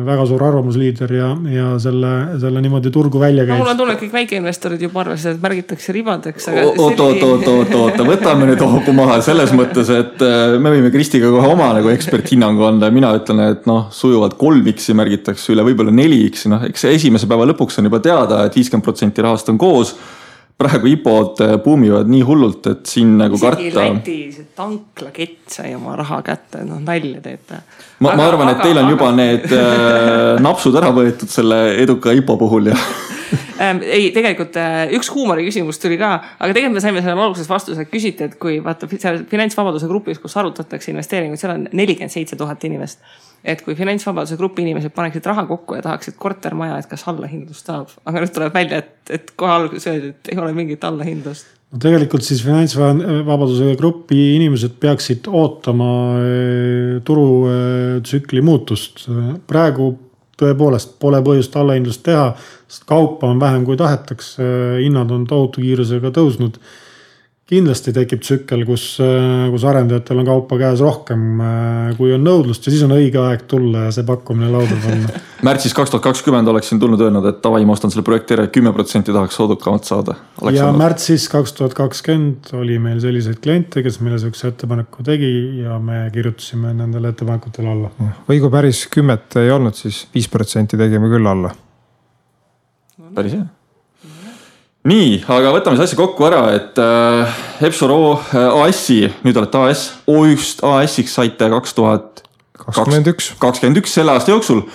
väga suur arvamusliider ja selle niimoodi turgu välja käid. Mul on tunne, kõik väikeinvestorid juba arvasid, et märgitakse ribadeks. Oota, võtame nüüd hoogu maha selles mõttes, et me võime Kristiga kohe oma eksperthinnangu anda. Mina ütlen, et sujuvalt 3x märgitakse üle, võib-olla 4x. Eks esimese päeva lõpuks on juba teada, et 50% rahast on koos. Praegu IPO-d buumivad nii hullult, et siin nagu karta. Isegi Läti tanklakett sai oma raha kätte, nalja teete. Ma arvan, et teil on juba need napsud ära võetud selle eduka IPO puhul ja ei, tegelikult üks huumori küsimus tuli ka, aga tegelikult me saime selle alguses vastuse, et küsiti, et kui vaata finantsvabaduse grupis, kus arutatakse investeeringuid, seal on 47 000 inimest. Et kui finantsvabaduse grupi inimesed paneksid raha kokku ja tahaksid kortermaja, et kas allahindlust saab. Aga nüüd tuleb välja, et kohe alguses öeldi, et ei ole mingit allahindlust. Tegelikult siis finantsvabaduse grupi inimesed peaksid ootama turutsükli muutust. Praegu tõepoolest pole põhjust allahindlust teha, sest kaupa on vähem kui tahetaks, hinnad on tohutu kiirusega tõusnud. Kindlasti tekib tsükkel, kus arendajatel on kaupa käes rohkem, kui on nõudlust ja siis on õige aeg tulla ja see pakkumine lauda panna. Märtsis 2020 oleksin tulnud öelnud, et tavai, ma ostan selle projekti ära, 10% tahaks soodukamalt saada. Ja märtsis 2020 oli meil selliseid kliente, kes meile sellise ettepaneku tegi ja me kirjutasime nendele ettepanekutele alla. Või kui päris 10 ei olnud, siis 5% tegime küll alla. Päris hea. Nii, aga võtame see asja kokku ära, et Epsor AS-i, nüüd olete AS, just AS-iks saite 2021 selle aasta jooksul.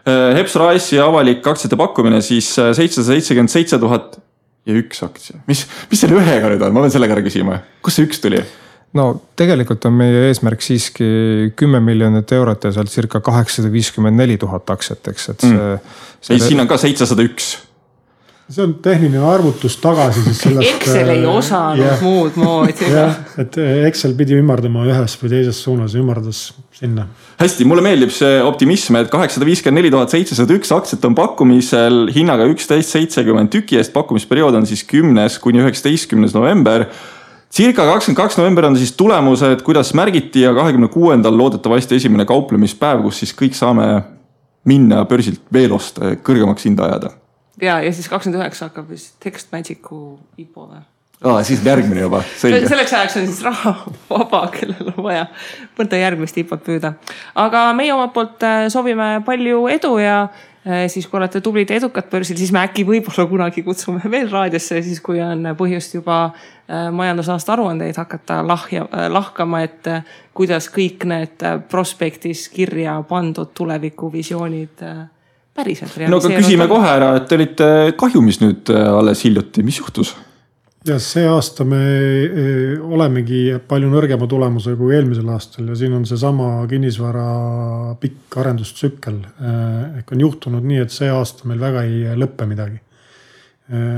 Hepsor AS-i avalik aktsiate pakkumine siis 777 000 ja üks aktsia. Mis selle ühega nüüd on? Ma pean sellega ära küsima. Kus see üks tuli? No tegelikult on meie eesmärk siiski 10 miljonit eurot ja sealt circa 854 000 aktsiat, eks. Siin on ka 701. See on tehniline arvutus tagasi. Siis sellest, Excel ei osanud muud moodi. Et Excel pidi ümardama ühes või teises suunas, ümardas sinna. Hästi, mulle meeldib see optimism, et 854 701 aktsiat on pakkumisel hinnaga 11.70 tüki eest. Pakkumisperiood on siis 10. kuni 19. november. Circa 22. november on siis tulemused, kuidas märgiti ja 26. loodetavasti esimene kauplemispäev, kus siis kõik saame minna börsilt veel osta kõrgemaks hinda ajada. Ja siis 29 hakkab vist Text Magicu IPO või? Siis järgmine juba, selge. Selleks ajaks on siis raha vaba, kellel on vaja mõnda järgmist IPO-t püüda. Aga meie omalt poolt soovime palju edu ja siis kui olete tublid ja edukad börsil, siis me äkki võib-olla kunagi kutsume veel raadiosse, siis kui on põhjust juba majandusaasta aruandeid hakata lahkama, et kuidas kõik need prospektis kirja pandud tulevikuvisioonid päriselt realiseerunud. No aga küsime kohe ära, et te olite kahjumis nüüd alles hiljuti, mis juhtus? Ja see aasta me olemegi palju nõrgema tulemuse kui eelmisel aastal ja siin on see sama kinnisvara pikk arendustsükkel. Ehk on juhtunud nii, et see aasta meil väga ei lõppe midagi.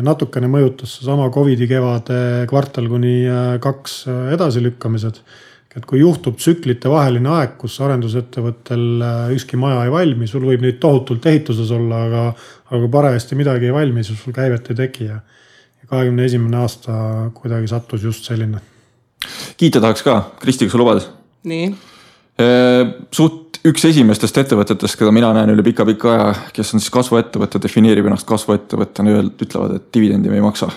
Natukene mõjutas sama COVID-i kevade kvartal kuni 2 edasilükkamised. Et kui juhtub tsüklite vaheline aeg, kus arendusettevõttel ükski maja ei valmi, sul võib neid tohutult ehituses olla, aga parajasti midagi ei valmi, siis sul käivet ei teki ja 21. aasta kuidagi sattus just selline. Kiita tahaks ka, Kristi, kas sa lubad? Nii. Suht üks esimestest ettevõtetest, keda mina näen üle pika aja, kes on siis kasvuettevõtte, defineerib ennast kasvuettevõttena, ütlevad, et dividendi me ei maksa.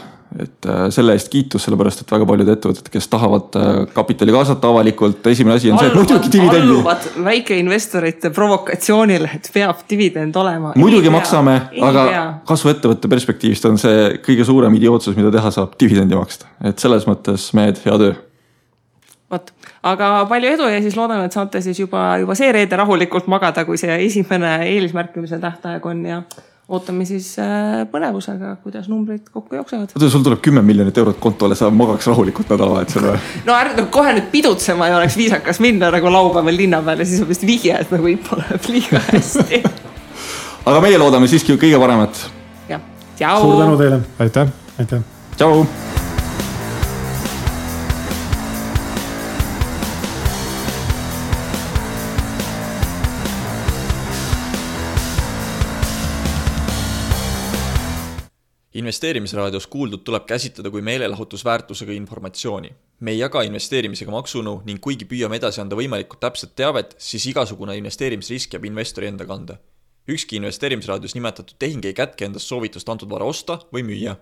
Et selle eest kiitus, sellepärast, et väga paljud ettevõtted, kes tahavad kapitali kaasata avalikult, esimene asi on see, et muidugi dividendi. Alluvad väikeinvestorite provokatsioonile, et peab dividend olema. Muidugi maksame, aga kasvuettevõtte perspektiivist on see kõige suurem idiootsus, mida teha saab dividendi maksta. Et selles mõttes mehed, hea töö. Võt. Aga palju edu ja siis loodame, et saate siis juba see reede rahulikult magada, kui see esimene eelismärkimise tähtaeg on ja ootame siis põnevusega, kuidas numbrid kokku jooksevad. Sul tuleb 10 miljonit eurot kontole, sa magaks rahulikult nädalavahetusel või? No kohe nüüd pidutsema ei oleks viisakas minna nagu laupäeval linna peale, siis on vist vihje, et nagu IPO läheb liiga hästi. Aga meie loodame siiski kõige paremat. Ja, tšau! Suur tänu teile! Aitäh! Tšau! Investeerimisraadios kuuldud tuleb käsitleda kui meelelahutusväärtusega informatsiooni. Me ei jaga investeerimisega maksunõu ning kuigi püüame edasi anda võimalikult täpset teavet, siis igasugune investeerimisrisk jääb investori enda kanda. Ükski investeerimisraadios nimetatud tehing ei kätke endast soovitust antud vara osta või müüa.